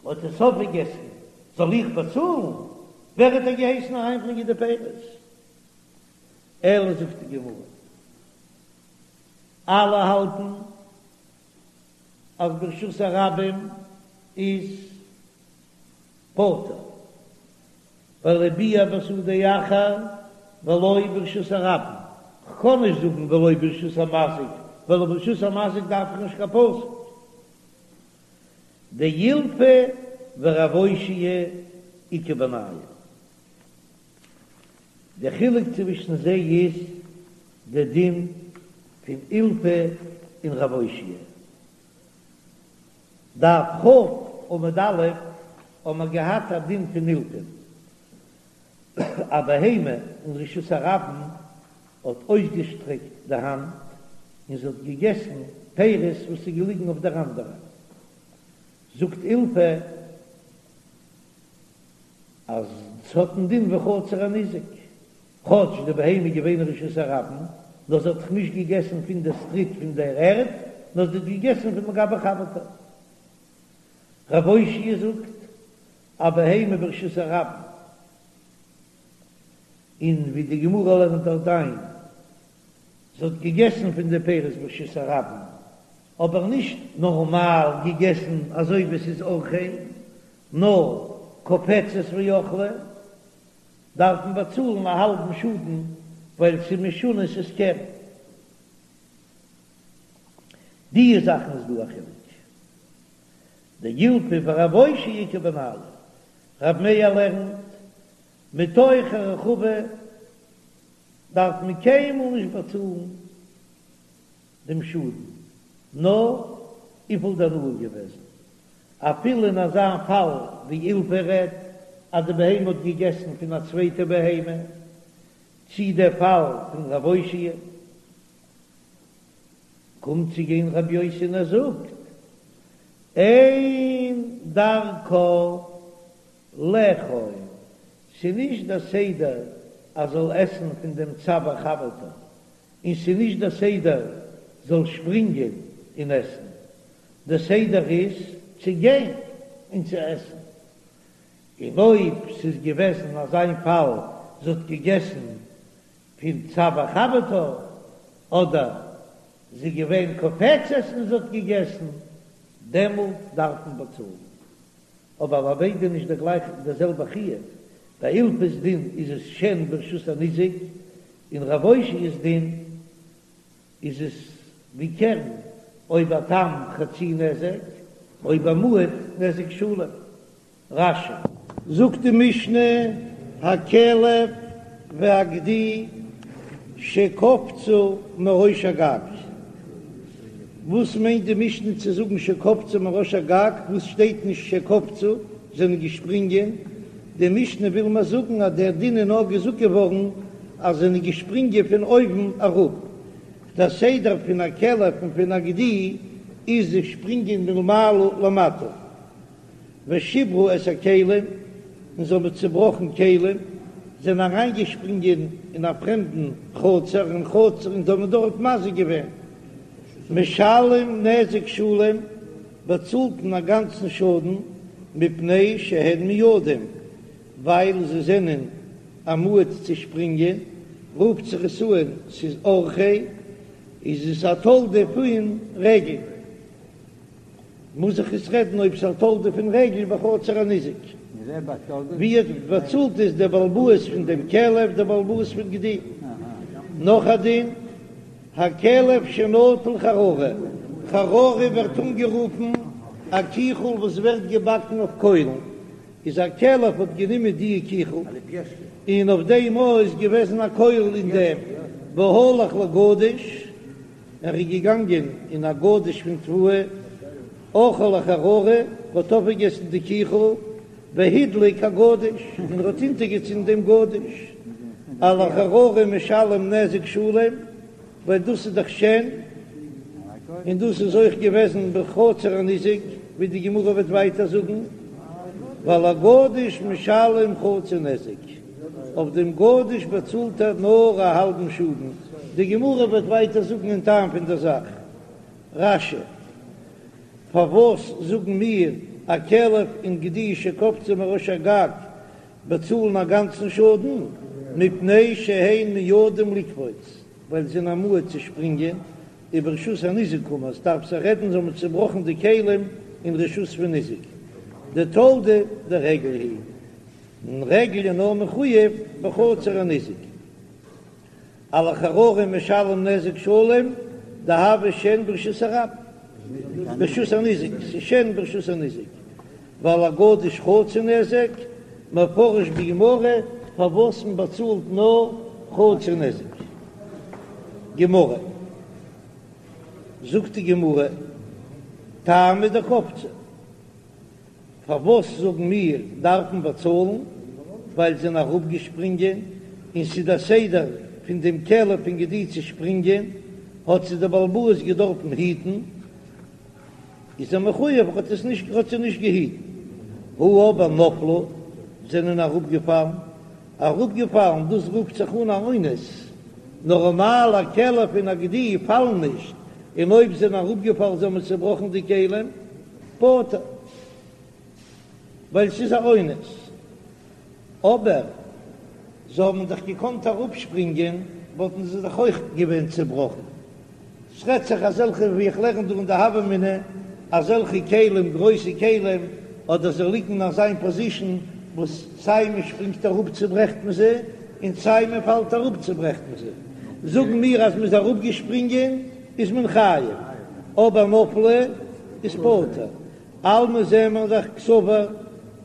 האט עס אויפגעגעסן זאל איך באצאלן? ווער האט דיר געהייסן אריינברענגען די פירות? אלא זאגט די גמרא, אלע האלטן אז ברשות הרבים איז פטור, ווייל וביער בשדה אחר ולא ברשות הרבים, כ'קען נישט זאגן ולא ברשות המזיק, ווייל ברשות המזיק דארף איך נישט קיין פסוק. דאילפא ורב אושעיא איכא בינייהו. די חילוק צווישן זיי איז די דין פון אילפא און רב אושעיא. דף כ'. עמוד א' האבן מיר געהאט א דין פון אילפא, א בהמה אין רשות הרבים האט אויסגעשטרעקט די האנט און זי האט געגעסן פירות וואס איז געליגן אויף דער אנדערע, זאגט אילפא אז ס'האט א דין ווי חצר הניזק, כאטש די בהמה איז געווען אין רשות הרבים, נאר זי האט דאך נישט געגעסן פון די סטריט פון דער ערד, נאר זי האט געגעסן פון מגבי חברתה. רב אושעיא זאגט, א בהמה ברשות הרבים, און ווי די גמרא לערנט דארט איין, זי האט געגעסן פון די פירות ברשות הרבים, אבער נישט נארמאל געגעסן אזוי ווי עס איז אורחיה, נאר קופצת ואכלה, דארף מען באצאלן א האלבן שאדן ווייל ס'איז משונה ס'איז קרן. די זאכן איז דא א חילוק. דאילפא ורב אושעיא איכא בינייהו. רב מאיר לערנט מתוך הרחבה דארף מען קיינמאל נישט באצאלן דעם שאדן, נאר וויפיל די הנאה געוועזן, אפילו אין אזא פאל ווי אילפא רעדט אז די בהמה האט געגעסן פון א צווייטע בהמה, צי דער פאל פון רב אושעיא, קומט צו גיין רב יוסי און ער זאגט, אין דרכה לאכול, ס'נישט דער סדר אז זאל עסן פון דעם צוואר חברתה, און ס'איז נישט דער סדר זאל שפרינגען און עסן, דער סדר איז צו גיין און צו עסן, און אויב ס'איז געוועזן אזא פאל זי האט געגעסן פון צוואר חברתה, אדער זי איז געווען קופצת און זי האט געגעסן, דעמאלט דארף מען באצאלן. אבער ביי ביידע נישט דער גלייכע דער זעלבע חיוב, ביי אילפא'ס דין איז עס שן ברשות הניזק, און רב אושעיא'ס דין איז עס ווי קרן, אויב א תם חצי נזק, אויב א מועד נזק שלם. רש"י. זאגט די משנה, הכלב והגדי שקפצו מראש הגג. וואס מיינט די משנה צו זאגן שקפצו מראש הגג, וואס שטייט נישט שקפצו, זענען געשפרינגען, די משנה וויל מיר זאגן אז דער דין איז נאר געזאגט געווארן אז זענען געשפרינגען פון אויבן אראפ, דער סדר פון א כלב און פון א גדי איז זיי שפרינגען מלמעלה למטה. ושברו את הכלים, און זיי האבן צעבראכן כלים, זענען אריינגעשפרינגען אין א פרעמדן חצר, אין חצר, און זיי האבן דארט מזיק געווען. משלם נזק שלם, באצאלט מען א גאנצן שאדן, מפני שהן מועדים, ווייל זיי זענען א מועד צו שפרינגען, רופט זיך עס אן ס'איז אורחיה, איז עס א תולדה פון רגל. מוז איך עס רעדן אויב ס'איז א תולדה פון רגל בחצר הניזק. ווי באצאלט איז דער בעל הבית פון דעם כלב דער בעל הבית פון גדי. נאך א דין, הכלב שנטל חררה, חררה ווערט אנגערופן א קיכל וואס ווערט געבאקן אויף קוילן, איז א כלב האט גענומען די קיכל און אויף דעם איז געוועזן א קויל אין דעם והלך לגדיש, ער איז געגאנגען אין א גדיש פון תבואה, אכל החררה, האט אויפגעגעסן די קיכל, והדליק הגדיש, און ער האט אונטערגעצינדן דעם גדיש, על החררה משלם נזק שלם, ווייל דאס איז דאך שן, און דאס איז אויך געוועזן בחצר הניזק, ווי די גמרא וועט ווייטער זאגן, ועל הגדיש משלם חצי נזק. אויף דעם גדיש באצאלט ער נאר א האלבן שאדן, די גמרא וועט ווייטער זאגן אין טעם פון דער זאך. רש"י, פארוואס זאגן מיר א כלב און גדי שקפצו מראש הגג באצאלן א גאנצן שאדן? מפני שהן מועדים לקפוץ, ווייל זיי זענען א מועד צו שפרינגען, וברשות הניזק קאמר, עס דארף זיך רעדן זיי האבן צובראכן די כלים אין רשות פון ניזק, דתולדה דרגל היא. און רגל איז נאר מחויב בחצר הניזק. על החררה משלם נזק שלם דהוה שן ברשות הרבים, ברשות הניזק, ס'איז שן ברשות הניזק, ועל הגדיש חצי נזק, מפרש בגמרא פארוואס מען באצאלט נאר חצי נזק. גמרא, זאגט די גמרא, טעמא דקפצו. פארוואס זאגן מיר דארפן באצאלן? ווייל זיי זענען אראפגעשפרינגען, און ס'איז דער סדר פון דעם כלב און גדי צו שפרינגען, האט זיי דער בעל הבית געדארפן היטן, איז ער מחויב, האט עס נישט האט זיי נישט געהיטן. הא אבער נפלו, זענען אראפגעפאלן, אראפגעפאלן, דאס רופט זיך אן א אונס, נארמאל א כלב און א גדי פאלן נישט, און אויב זענען אראפגעפאלן זיי האבן צעבראכן די כלים, פטור, ווייל ס'איז א אונס. אבער זיי האבן דאך געקאנט אראפשפרינגען וואלטן זיי דאך אויך געווען צעבראכן. ס'רעדט זיך אזעלכע ווי איך לערן דא אין די הוה אמינא, אזעלכע כלים, גרויסע כלים, אדער זיי ליגן אין אזיין פאזישן וואס סיי מען שפרינגט אראפ צוברעכט מען זיי, און סיי מען פאלט אראפ צוברעכט מען זיי. זאגן מיר אז מ'איז אראפגעשפרינגען איז מען חייב, אבער נפלו איז פטור. אלמא זעען מיר דאך קסבר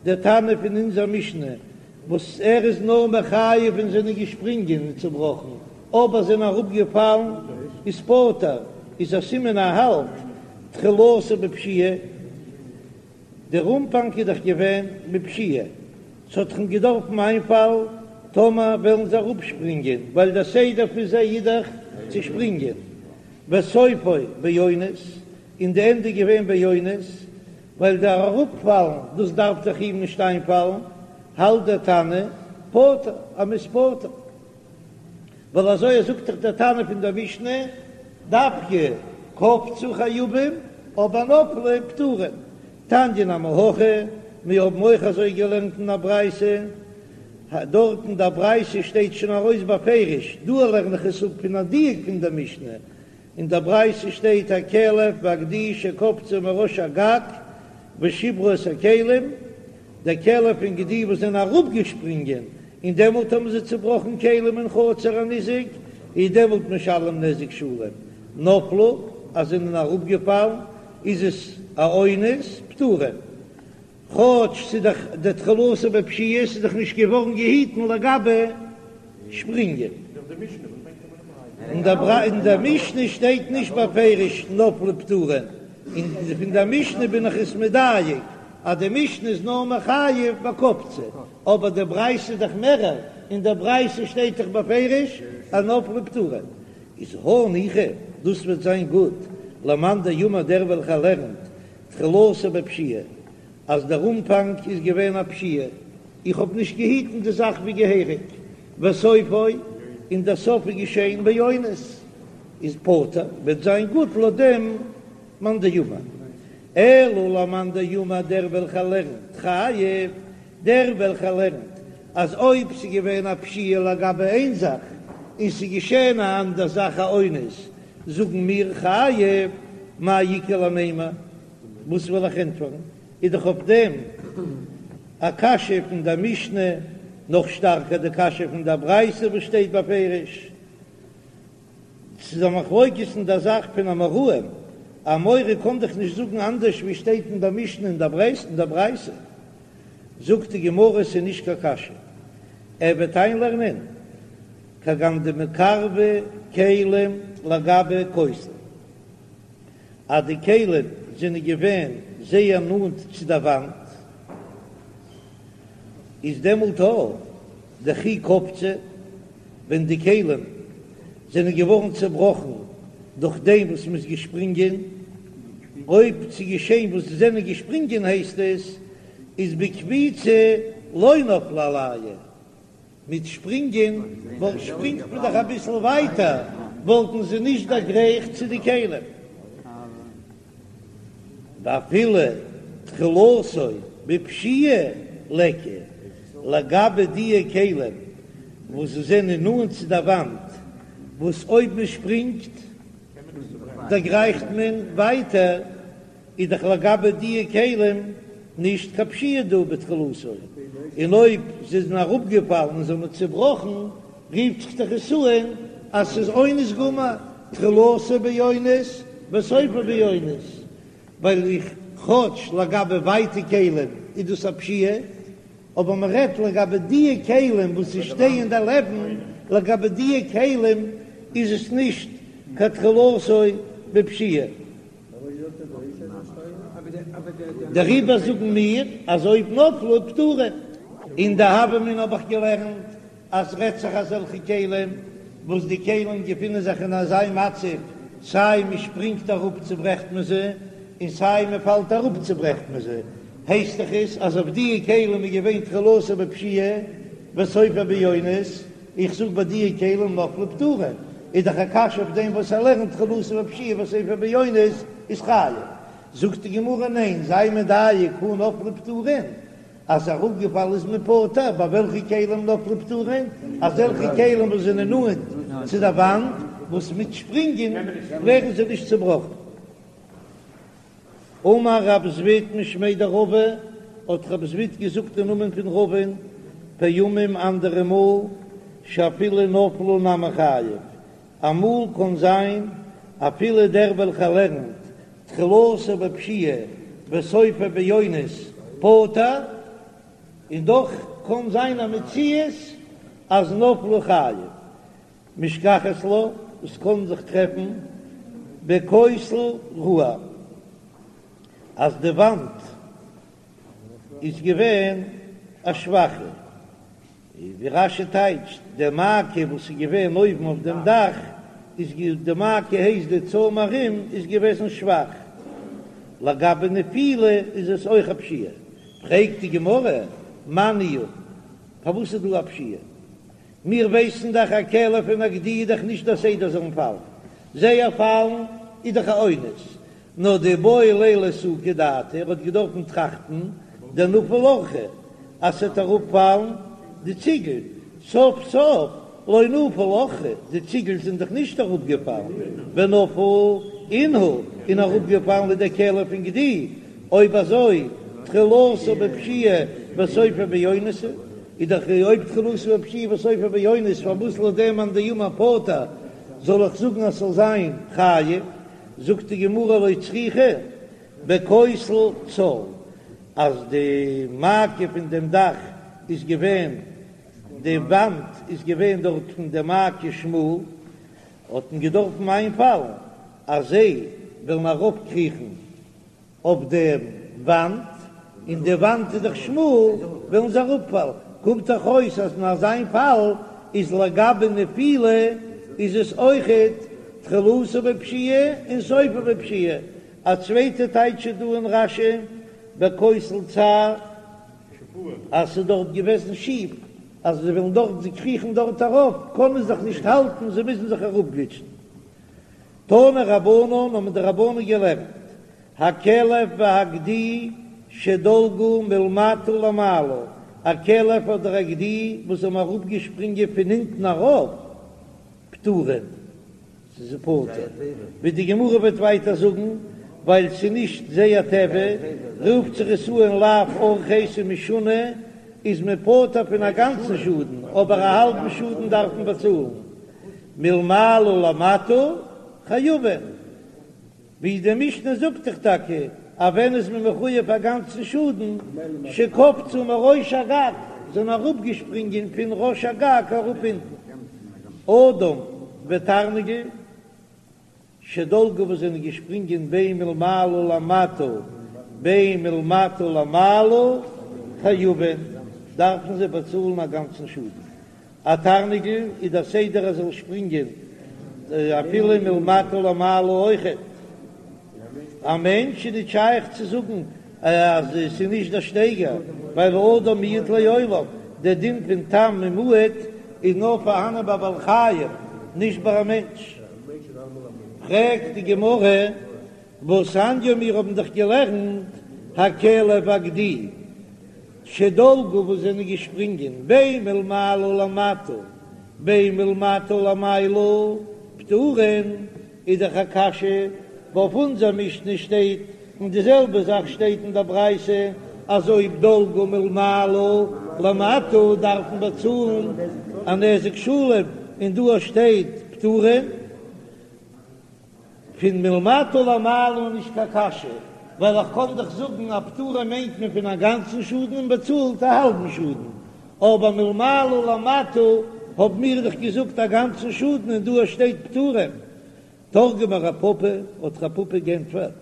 דער תנא פון אונזער משנה וואס ער איז נאר מחייב ווען זענען געשפרינגען און צובראכן, אבער זענען אראפגעפאלן איז פטור, איז א סימן ער האלט תחילתו בפשיעה, דער אנפאנג איז דאך געווען בפשיעה, ס'האט דאך אים געדארפן איינפאלן טאמער וועלן זיי אראפשפרינגען, ווייל דער סדר פון זיי איז דאך צו שפרינגען, וסופו באונס, און די ענדע איז געווען באונס, ווייל דער אראפפאלן דאס דארף דאך אים נישט איינפאלן, האלט דער תנא פטור אז מ'איז פטור, ווייל אזוי זאגט דאך דער תנא פון דער משנה, דווקא קפצו חייבים אבער נפלו פטורין, תניא נמי הכי, מיר האבן אויך אזוי געלערנט אין א ברייתא, דארט אין דער ברייתא שטייט שוין ארויס בפירוש, דא לערן איך עס אפ פון א דיוק פון דער משנה, אין דער ברייתא שטייט הכלב והגדי שקפצו מראש הגג ושברו את הכלים, דער כלב און גדי וואס זענען אראפגעשפרינגען און דעמאלט האבן זיי צובראכן כלים אין חצר הניזק, איז דעמאלט משלם נזק שלם, נפלו אז זענען אראפגעפאלן איז עס א אונס, פטורין. כאטש ס'איז דאך די תחילתו בפשיעה, ס'איז דאך נישט געווארן געהיטן לגבי שפרינגען. אין דער משנה שטייט נישט בפירוש נפלו פטורין, און פון דער משנה בין איך עס מדייק אז די משנה איז נאר מחייב בקפצו, אבער די ברייתא איז דאך מערער, אין דער ברייתא שטייט דאך בפירוש אז נפלו פטורין. איז הניחא, דאס וועט זיין גוט למאן דאמר דער וועלכער לערנט תחילתו בפשיעה, אז דער אנפאנג איז געווען א פשיעה, איך האב נישט געהיטן די זאך ווי געהעריג, וסופו, און דער סוף איז געשען באונס, איז פטור, וועט זיין גוט לויט דעם מאן דאמר. אלא למאן דאמר דער וועלכער לערנט חייב, דער וועלכער לערנט אז אויב ס'איז געווען א פשיעה לגבי איין זאך, און ס'איז געשען א אנדער זאך א אונס, זאגן מיר חייב, מאי איכא למימר, וואס וועל איך ענטפערן? איז דאך אויף דעם א קשיא פון דער משנה, נאך שטארקער די קשיא פון דער ברייתא וואס שטייט בפירוש, ס'איז א מחלוקת אין דער זאך פון אמוראים, אן אמורא קען דאך נישט זאגן אנדערש ווי שטייט אין דער משנה און דער ברייתא. זאגט די גמרא ס'איז נישט קיין קשיא, ער וועט איינלערנען כגון דמקרבי כלים לגבי כותל, אז די כלים זענען געווען זייער נאנט צו דער וואנט, איז דעמאלט אויך דכי קפצו, ווען די כלים זענען געווארן צעבראכן דורך דעם וואס מ'איז געשפרינגען, אויב ס'איז געשען וואס זיי זענען געשפרינגען הייסט עס איז בקפיצה לא נפלו עלייהו, מיט שפרינגען וואלט שפרינגט מען דאך אביסל ווייטער וואלטן זיי נישט דערגרייכט צו די כלים. ואפילו תחילתו בפשיעה ליכא, לגבי דיע כלים וואס זענען נאנט צו די וואנט, וואס אויב מען שפרינגט דערגרייכט מען ווייטער, איז דאך לגבי דיע כלים נישט קיין פשיעה דא בתחילתו, און אויב זיי זענען אראפגעפאלן און זיי האבן צובראכן, רופט זיך דאך עס אן אז ס'איז אונס גמור, תחילתו באונס וסופו באונס, ווייל איך כאטש לגבי ווייטע כלים איז דאס א פשיעה, אבער מען רעדט לגבי דיע כלים וואס זיי שטייען דערלעבן, לגבי דיע כלים איז עס נישט קיין תחילתו בפשיעה. דעריבער זאגן מיר אז אויב נפלו פטורין. אין די הוה אמינא האב איך געלערנט אז רעדט זיך אזעלכע כלים וואס די כלים געפינען זיך אין אזא מצב, סיי מען שפרינגט אראפ צוברעכט מען זיי, און סיי מען פאלט אראפ צוברעכט מען זיי, הייסט דאך עס אז אויף דיע כלים איז געווען תחילתו בפשיעה וסופו באונס, איך זאג ביי דיע כלים נפלו פטורין, איז דאך א קשיא אויף דעם וואס ער לערנט תחילתו בפשיעה וסופו באונס איז חייב, זאגט די גמרא ניין, זיי מדייק הא נפלו פטורין, אז אראפגעפאלן איז מען פטור, ביי וועלכע כלים נפלו פטורין? אזעלכע כלים וואס זענען נאנט צו די וואנט, וואס מיט שפרינגען ווערן זיי נישט צובראכן. אמר רב זביד משמיה דרבא, האט רב זביד געזאגט אין נאמען פון רבא'ן, פעמים אנדערע מאל, שאפילו נפלו נמי חייב, אמאל קען זיין אפילו דער וועלכער לערנט תחילתו בפשיעה וסופו באונס פטור, און דאך קען זיין א מציאות אז נפלו חייב. משכחת לה, עס קען זיך טרעפן בכותל רעוע אז די וואנט איז געווען א שוואכע, ווי רש"י טייטשט, די מעקה וואס איז געווען אויבן אויף דעם דאך, איז די מעקה הייסט די צוים ארום איז געוועזן שוואך, לגבי נפילה איז עס אויך א פשיעה, פרעגט די גמרא, מאי ניהו, פארוואס איז דא א פשיעה? מיר ווייסן דאך א כלב און א גדי איז דאך נישט דער סדר זאלן פאלן, זייער פאלן איז דאך א אונס, נאר דאיבעי ליה לאסוקי דעתיה, ער האט געדארפן טראכטן דנפיל אורחא אז ס'וועט אראפפאלן די ציגל, סוף סוף לא נפל אורחא, די ציגל זענען דאך נישט אראפגעפאלן, ונפול אינהו, און אראפגעפאלן איז דער כלב און גדי, אויב אזוי תחילתו בפשיעה וסופו באונס, איז דאך אויב תחילתו בפשיעה וסופו באונס פארוואס לויט דעם מאן דאמר פטור זאל איך זאגן אז ס'זאל זיין חייב? זאגט די גמרא לא צריכא בכותל צר, אז די מעקה פון דעם דאך איז געווען, די וואנט איז געווען דארט פון די מעקה שמאל, האט מען געדארפן איינפאלן אז זיי וועלן ארויפקריכן אויף דעם וואנט, און די וואנט איז דאך שמאל, וועלן זיי אראפפאלן, קומט דאך אויס אז אין אזיין פאל איז לגבי נפילה איז עס אויכעט תחילתו בפשיעה און סופו בפשיעה, א צווייטע טייטש איז דא אין רש"י בכותל צר אז ס'איז דארט געוועזן שיף, אז זיי וועלן דארט זיי קריכן דארט ארויף קענען זיך נישט האלטן זיי מוזן זיך אראפגליטשן. תנו רבנן האבן די רבנן געלערנט, הכלב והגדי שדלגו מלמטה למעלה, א כלב אדער א גדי וואס האבן אראפגעשפרינגען פון אונטן ארויף, פטורין, ס'איז פטור, ווי די גמרא וועט ווייטער זאגן, ווייל ס'איז נישט זייער טבע, רופט זיך עס אן לאו אורחיה ס'איז משונה, איז מען פטור פון א גאנצן שאדן, אבער א האלבן שאדן דארף מען באצאלן. מלמעלה למטה חייבין, ווי די משנה זאגט דאך טאקע אז ווען איז מען מחויב א גאנצן שאדן, שקפצו מראש הגג, זענען אראפגעשפרינגען פון ראש הגג אראפ אונטן, אדם ותרנגול. שדלגו וואס זענען געשפרינגען בין מלמעלה למטה בין מלמטה למעלה חייבין, דארפן זיי באצאלן א גאנצן שאדן. א תרנגול איז דער סדר ער זאל שפרינגען אפילו מלמטה למעלה אויכעט. א מענטש איז נישט שייך צו זאגן אז עס איז נישט דער שטייגער, ווייל אדם מועד לעולם, דער דין פון תם און מועד איז נאר פארהאנען ביי בעלי חיים, נישט ביי א מענטש. פרעגט די גמרא, והתניא מיר האבן דאך געלערנט הכלב והגדי שדלגו וואס זענען געשפרינגען בין מלמעלה למטה בין מלמטה למעלה פטורין, איז דאך א קשיא, ווייל אויף אונזער משנה שטייט, און די זעלבע זאך שטייט אין דער ברייתא, אז אויב דלגו מלמעלה למטה דארף מען באצאלן א נזק שלם, און דא שטייט פטורין. פון מלמטה למעלה איז נישט קיין קשיא, ווייל איך קען דאך זאגן אז פטורין מיינט מען פון א גאנצן שאדן און באצאלט א האלבן שאדן, אבער מלמעלה למטה האבן מיר דאך געזאגט א גאנצן שאדן און דא שטייט פטורין. תרגמה רב פפא, האט רב פפא גענטפערט,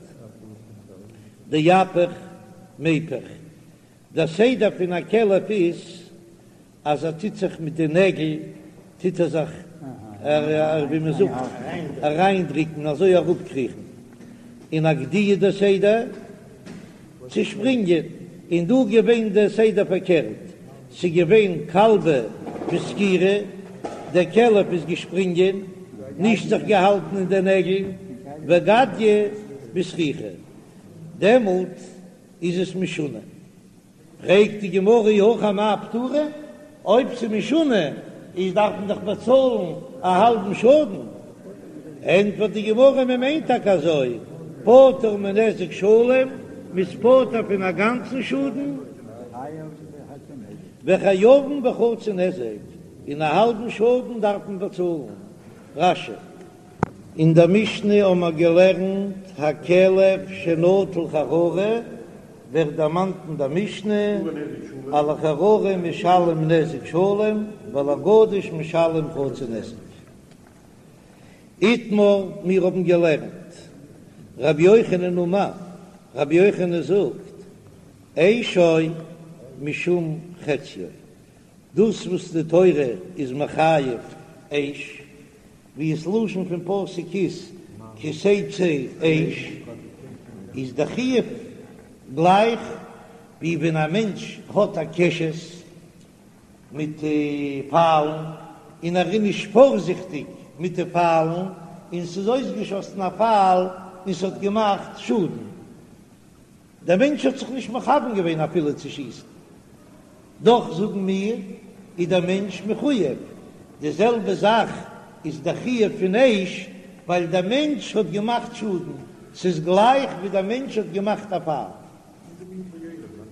דאפיך. מיפך. דער סדר פון א כלב איז אז ער טוט זיך מיט די נעגל טוט ער זיך ווי מען זאגט אריינדריקן אזוי אראפקריכן, און א גדי איז דער סדר צו שפרינגען, און דא געווען דער סדר פארקערט, ס'איז געווען כלבא בסקירא, דער כלב איז געשפרינגען, נישט זיך געהאלטן אין די נעגל, וגדיא בסריכא, דעמאלט איז עס משונה. פרעגט די גמרא אי הכי אמאי פטורין, אויב ס'איז משונה איז דארף מען דאך באצאלן א האלבן שאדן, ענטפערט די גמרא מען מיינט טאקע אזוי, פטור מנזק שלם, מ'איז פטור פון א גאנצן שאדן, וחייבין בחצי נזק, און א האלבן שאדן דארף מען באצאלן. רש"י. אין דער משנה האבן מיר געלערנט הכלב שנטל חררה, ווערט דערמאנט אין דער משנה על החררה משלם נזק שלם ועל הגדיש משלם חצי נזק. איתמר, מיר האבן געלערנט רבי יוחנן אמר, רבי יוחנן זאגט, אשו משום חציו, דאס וואס די תורה איז מחייב אש, ווי עס לשון פון פסוק איז כי תצא אש, איז די חיוב גלייך ווי ווען א מענטש האט א קשת מיט פיילן און ער איז נישט פארזיכטיג מיט די פיילן און ס'איז אויסגעשאסן א פייל און ס'האט געמאכט שאדן, דער מענטש האט זיך נישט מכוון געווען אפילו צו שיסן, דאך זאגן מיר איז דער מענטש מחויב, די זעלבע זאך איז דער חיוב פון אש, ווייל דער מענטש האט געמאכט שאדן, ס'איז גלייך ווי דער מענטש האט געמאכט א פייל.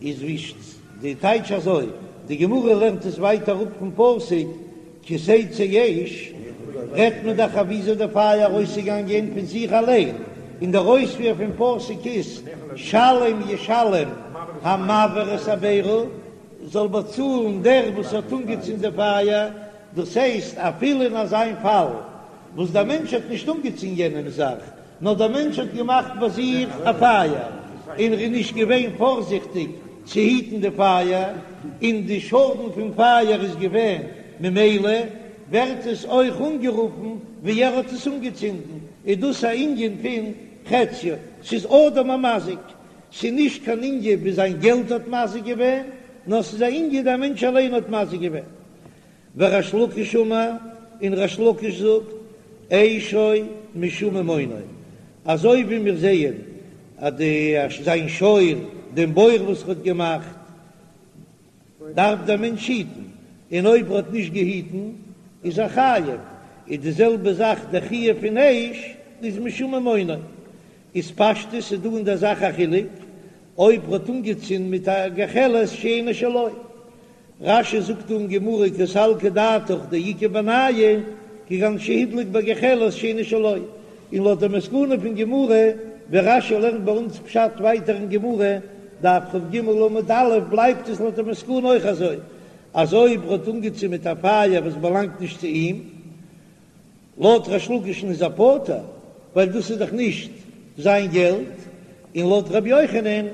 איז ווי די טייטש אזוי, די גמרא לערנט עס ווייטער אראפ פון פסוק כי תצא אש, רעדט מען דאך אויף וויאזוי די פייער ארויסצוגאנגען פון זיך אליין, און דער אויספיר פון פסוק איז שלם ישלם המבעיר את הבערה, זאל באצאלן דער וואס האט אנגעצינדן די פייער, דאס הייסט אפילו אין אזיין פאל וואס דער מענטש האט נישט אנגעצינדן יענעמס זאך, נאר דער מענטש האט געמאכט ביי זיך א פייער, און ער איז נישט געווען פארזיכטיג צו היטן די פייער, און די שאדן פון פייער איז געווען, ממילא ווערט עס אויך אנגערופן ווי ער האט עס אנגעצינדן, איז דאס א ענין פון חציו, ס'איז אדם המזיק, ס'איז נישט קיין ענין ווי זיין געלט האט מזיק געווען, נאר ס'איז א ענין דער מענטש אליין האט מזיק געווען. וריש לקיש אמר, און ריש לקיש זאגט, אשו משום ממונו, אזוי ווי מיר זעען אז די זיין שור, דעם בור וואס ער האט געמאכט, דארף דער מענטש היטן, און אויב ער האט נישט געהיטן איז ער חייב, איז די זעלבע זאך דער חיוב פון אש איז משום ממונו, איז פשטות איז דא אין דער זאך א חילוק, אויב ער האט אנגעצינדן מיט א גחלת שאינה שלו, רש"י זאגט דא אין גמרא קא סלקא דעתך דאיכא בינייהו כגון שהדליק בגחלת שאינה שלו, און לויט די מסקנא פון גמרא ווי רש"י לערנט ביי אונז פשט ווייטער אין גמרא, דף כ"ג עמוד א', בלייבט עס לויט די מסקנא אויך אזוי אז אויב ער האט אנגעצינדן מיט א פייער וואס באלאנגט נישט צו אים, לויט ריש לקיש'ן איז ער פטור, ווייל דאס איז דאך נישט זיין געלט, און לויט ר' יוחנן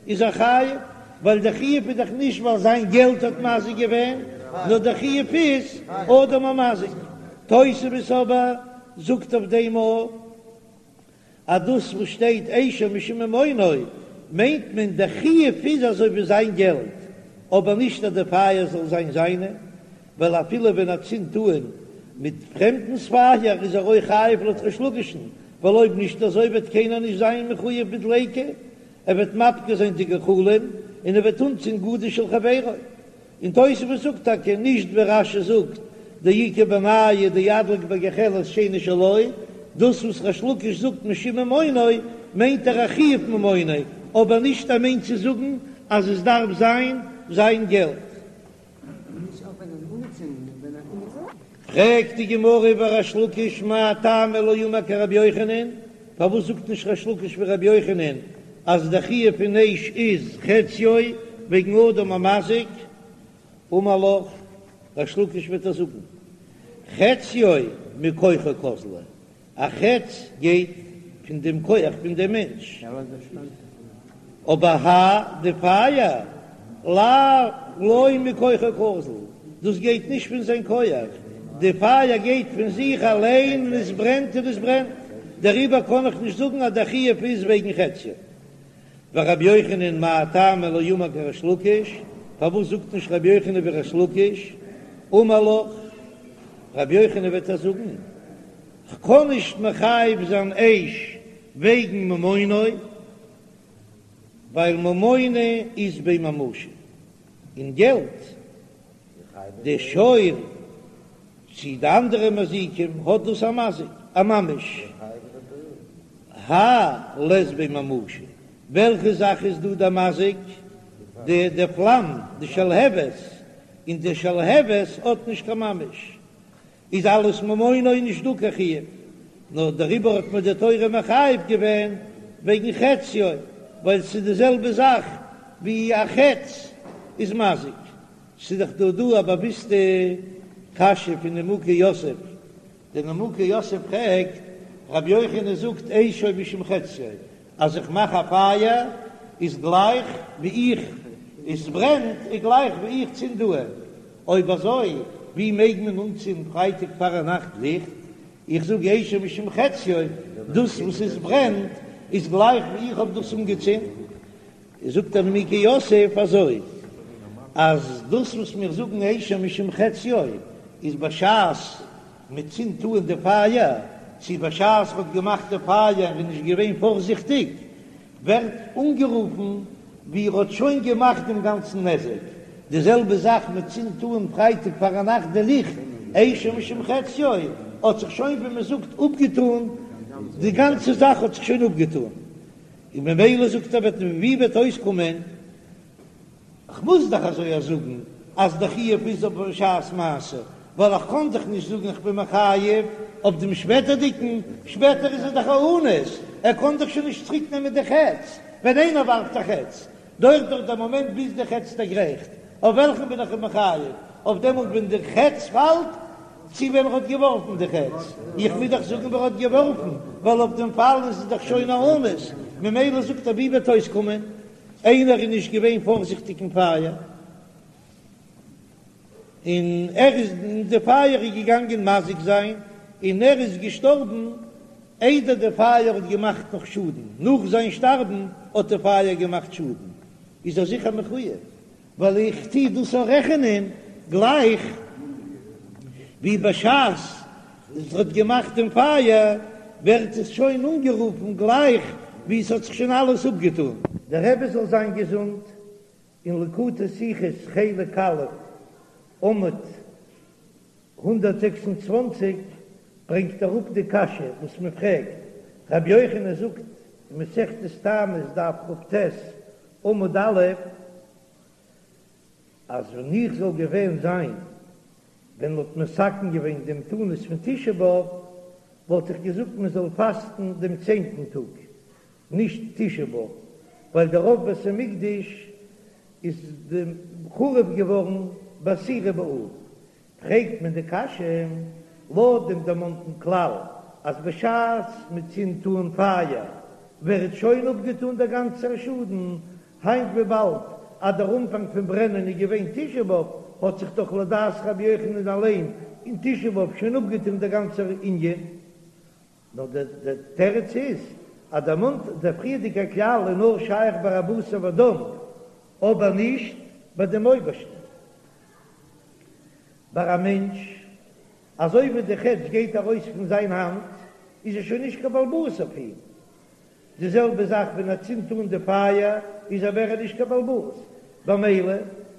איז ער חייב, ווייל דער חיוב איז דאך נישט ווייל זיין געלט האט מזיק געווען, נאר דער חיוב איז אדם המזיק. תוספות אבער זאגט אויף דעם א. אז דאס וואס שטייט אשו משום ממונו מיינט מען דער חיוב איז אזוי ווי זיין געלט, אבער נישט אז די פייער זאל זיין זיינע, ווייל אפילו ווען ער צינדט אן מיט פרעמדנס פייער איז ער אויך חייב לויט ריש לקיש'ן, ווייל אויב נישט אזוי וועט קיינער נישט זיין מחויב בדליקה, ער וועט מפקיר זיין די גחלים און ער וועט אנצינדן גדיש של חברו. און תוספות זאגט טאקע נישט ווי רש"י זאגט דאיכא בינייהו דאדליק בגחלת שאינה שלו, דאס וואס ריש לקיש זאגט משום ממונו מיינט ער א חיוב ממונו, אבער נישט ער מיינט צו זאגן אז עס דארף זיין זיין געלט. פרעגט די גמרא וריש לקיש מאי טעמא לא אמר כרבי יוחנן, פארוואס זאגט נישט ריש לקיש ווי רבי יוחנן אז די חיוב פון אש איז חציו וועגן אדם המזיק? אמר לך, ריש לקיש וועט ער זאגן חציו מכוחו קאזלא, א חץ גייט פון דעם כח פון דעם מענטש. אבער האי די פייער לאו לא מכוחו קאזיל, דאס גייט נישט פון זיין כח, די פייער גייט פון זיך אליין און עס ברענט און עס ברענט, דעריבער קען איך נישט זאגן אז דער חיוב איז וועגן חציו. ורבי יוחנן מאי טעמא לא אמר כריש לקיש, פארוואס זאגט נישט רבי יוחנן ווי ריש לקיש, אמר לך, רבי יוחנן וועט ער זאגן, כ'קען נישט מחייב זיין אש וועגן ממונו, ווייל ממונא אית ביה ממשא, און געלט, די שור צי די אנדערע מזיקים האט דאס א מזיק, א ממש, האי לית ביה ממשא, וועלכע זאך איז דא די מזיק? די די פלאם, די שלהבת, און די שלהבת האט נישט קיין ממש, איז אלס ממונו נישט דא קיין חיוב, נאר דעריבער האט מען די תורה מחייב געווען וועגן חציו, ווייל ס'איז די זעלבע זאך ווי א חץ איז מזיק. ס'איז דאך דא דא א באוויסטע קשיא פון נימוקי יוסף, דער נימוקי יוסף פרעגט, רבי יוחנן זאגט אשו משום חציו, אז איך מאך א פייער איז גלייך ווי איך, עס ברענט איז גלייך ווי איך צינד אן, אויב אזוי ווי מעג מען אנצינדן פרייטאג פארנאכט ליכט? איך זאג אשו משום חציו, דאס וואס עס ברענט איז גלייך ווי איך האב דאס אנגעצינדן. זאגט דער נימוקי יוסף אזוי, אז דאס וואס מיר זאגן אשו משום חציו איז בשעת מען צינדט אן די פייער, צו בשעת מען האט געמאכט די פייער און נישט געווען פארזיכטיג, ווערט אנגערופן ווי ער האט שוין געמאכט דעם גאנצן נזק. די זעלבע זאך מען צינדט אן פרייטאג פארנאכט די ליכט, אשו משום חציו, האט זיך שוין ווי מען זאגט אפגעטאן, די גאנצע זאך האט זיך שוין אפגעטאן, און ממילא זאגט ער וועט ווי וועט אויסקומען, כ'מוז דאך אזוי א זאגן אז די חיוב איז אויף בשעת מעשה, ווייל איך קען דאך נישט זאגן איך בין מחייב אויף דעם שפעטערדיגן, שפעטער איז ער דאך א אנוס, ער קען דאך שוין נישט צוריק נעמען די חץ, ווען איינער ווארפט א חץ, דויערט דאך דער מאמענט ביז די חץ דערגרייכט, אויף וועלכן בין איך אים מחייב, אויף דעמאלט ווען די חץ פאלט, צו ווען ער האט געווארפן די חץ, איך מוז דאך זאגן ווען ער האט געווארפן, ווייל אויף דעם פאל איז עס דאך שוין א אונס, ממילא זאגט ער ווי וועט אויסקומען, איינער איז נישט געווען פארזיכטיג אין פייער, און ער איז און די פייער איז געגאנגען מזיק זיין, און ער איז געשטארבן איידער די פייער האט געמאכט נאך שאדן, נאך זיין שטארבן האט די פייער געמאכט שאדן, איז ער זיכער מחויב, ווייל איך טוה דאס אויך רעכענען גלייך ווי בשעת עס האט געמאכט דעם פייער ווערט עס שוין אנגערופן גלייך ווי עס האט זיך שוין אלעס אפגעטון. דער רבי זאל זיין געזונט, אין ליקוטי שיחות חלק א' עמוד 126 ברענגט אראפ די קשיא וואס מען פרעגט, רבי יוחנן זאגט אין מסכת תענית דף כ"ט עמוד א', אז ווען איך זאל געווען זיין ווען מ'האט מתקן געווען דעם תענית פון תשעה באב, וואלט איך געזאגט מען זאל פאסטן דעם צענטן טאג, נישט תשעה באב, ווייל דער רוב בית המקדש איז חרוב געווארן בעשירי באב, פרעגט מען די קשיא, לויט דעם דערמאנטן כלל אז בשעת מען צינדט אן פייער ווערט שוין אפגעטאן דער גאנצער שאדן, היינט וויבאלד אז דער אנפאנג פון ברענען איז געווען תשעה באב, האט זיך דאך לדעת רבי יוחנן אליין אין תשעה באב שוין אפגעטאן דער גאנצער ענין. נאר דער תירוץ איז אז דערמאנט דער פריערדיגער כלל איז נאר שייך ביי א בשר ודם, אבער נישט ביי דעם אויבערשטן. ביי א מענטש, אזוי ווי די חץ גייט ארויס פון זיין האנט, איז ער שוין נישט קיין בעל הבית אויף אים. די זעלבע זאך ווען ער צינדט אן די פייער, איז ער מער נישט קיין בעל הבית. במילא,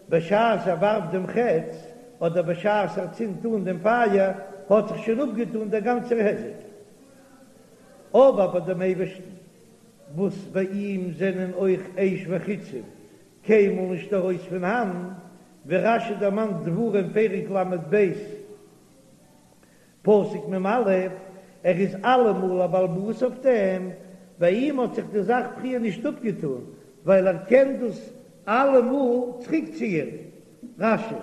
בשעת ער ווארפט דעם חץ, אדער בשעת ער צינדט אן דעם פייער, האט זיך שוין אפגעטאן דער גאנצער היזק. אבער ביי דעם אייבערשטן, וואס ביי אים זענען אויך אש וחיצים קיינמאל נישט ארויס פון האנט, ווי רש"י דערמאנט דברים פרק ל"ב פסוק מ"א, ער איז אלעמאל א בעל הבית אויף דעם, ביי אים האט זיך די זאך פריער נישט אפגעטאן, ווייל ער קען דאס אלעמאל צוריקציען. רש"י.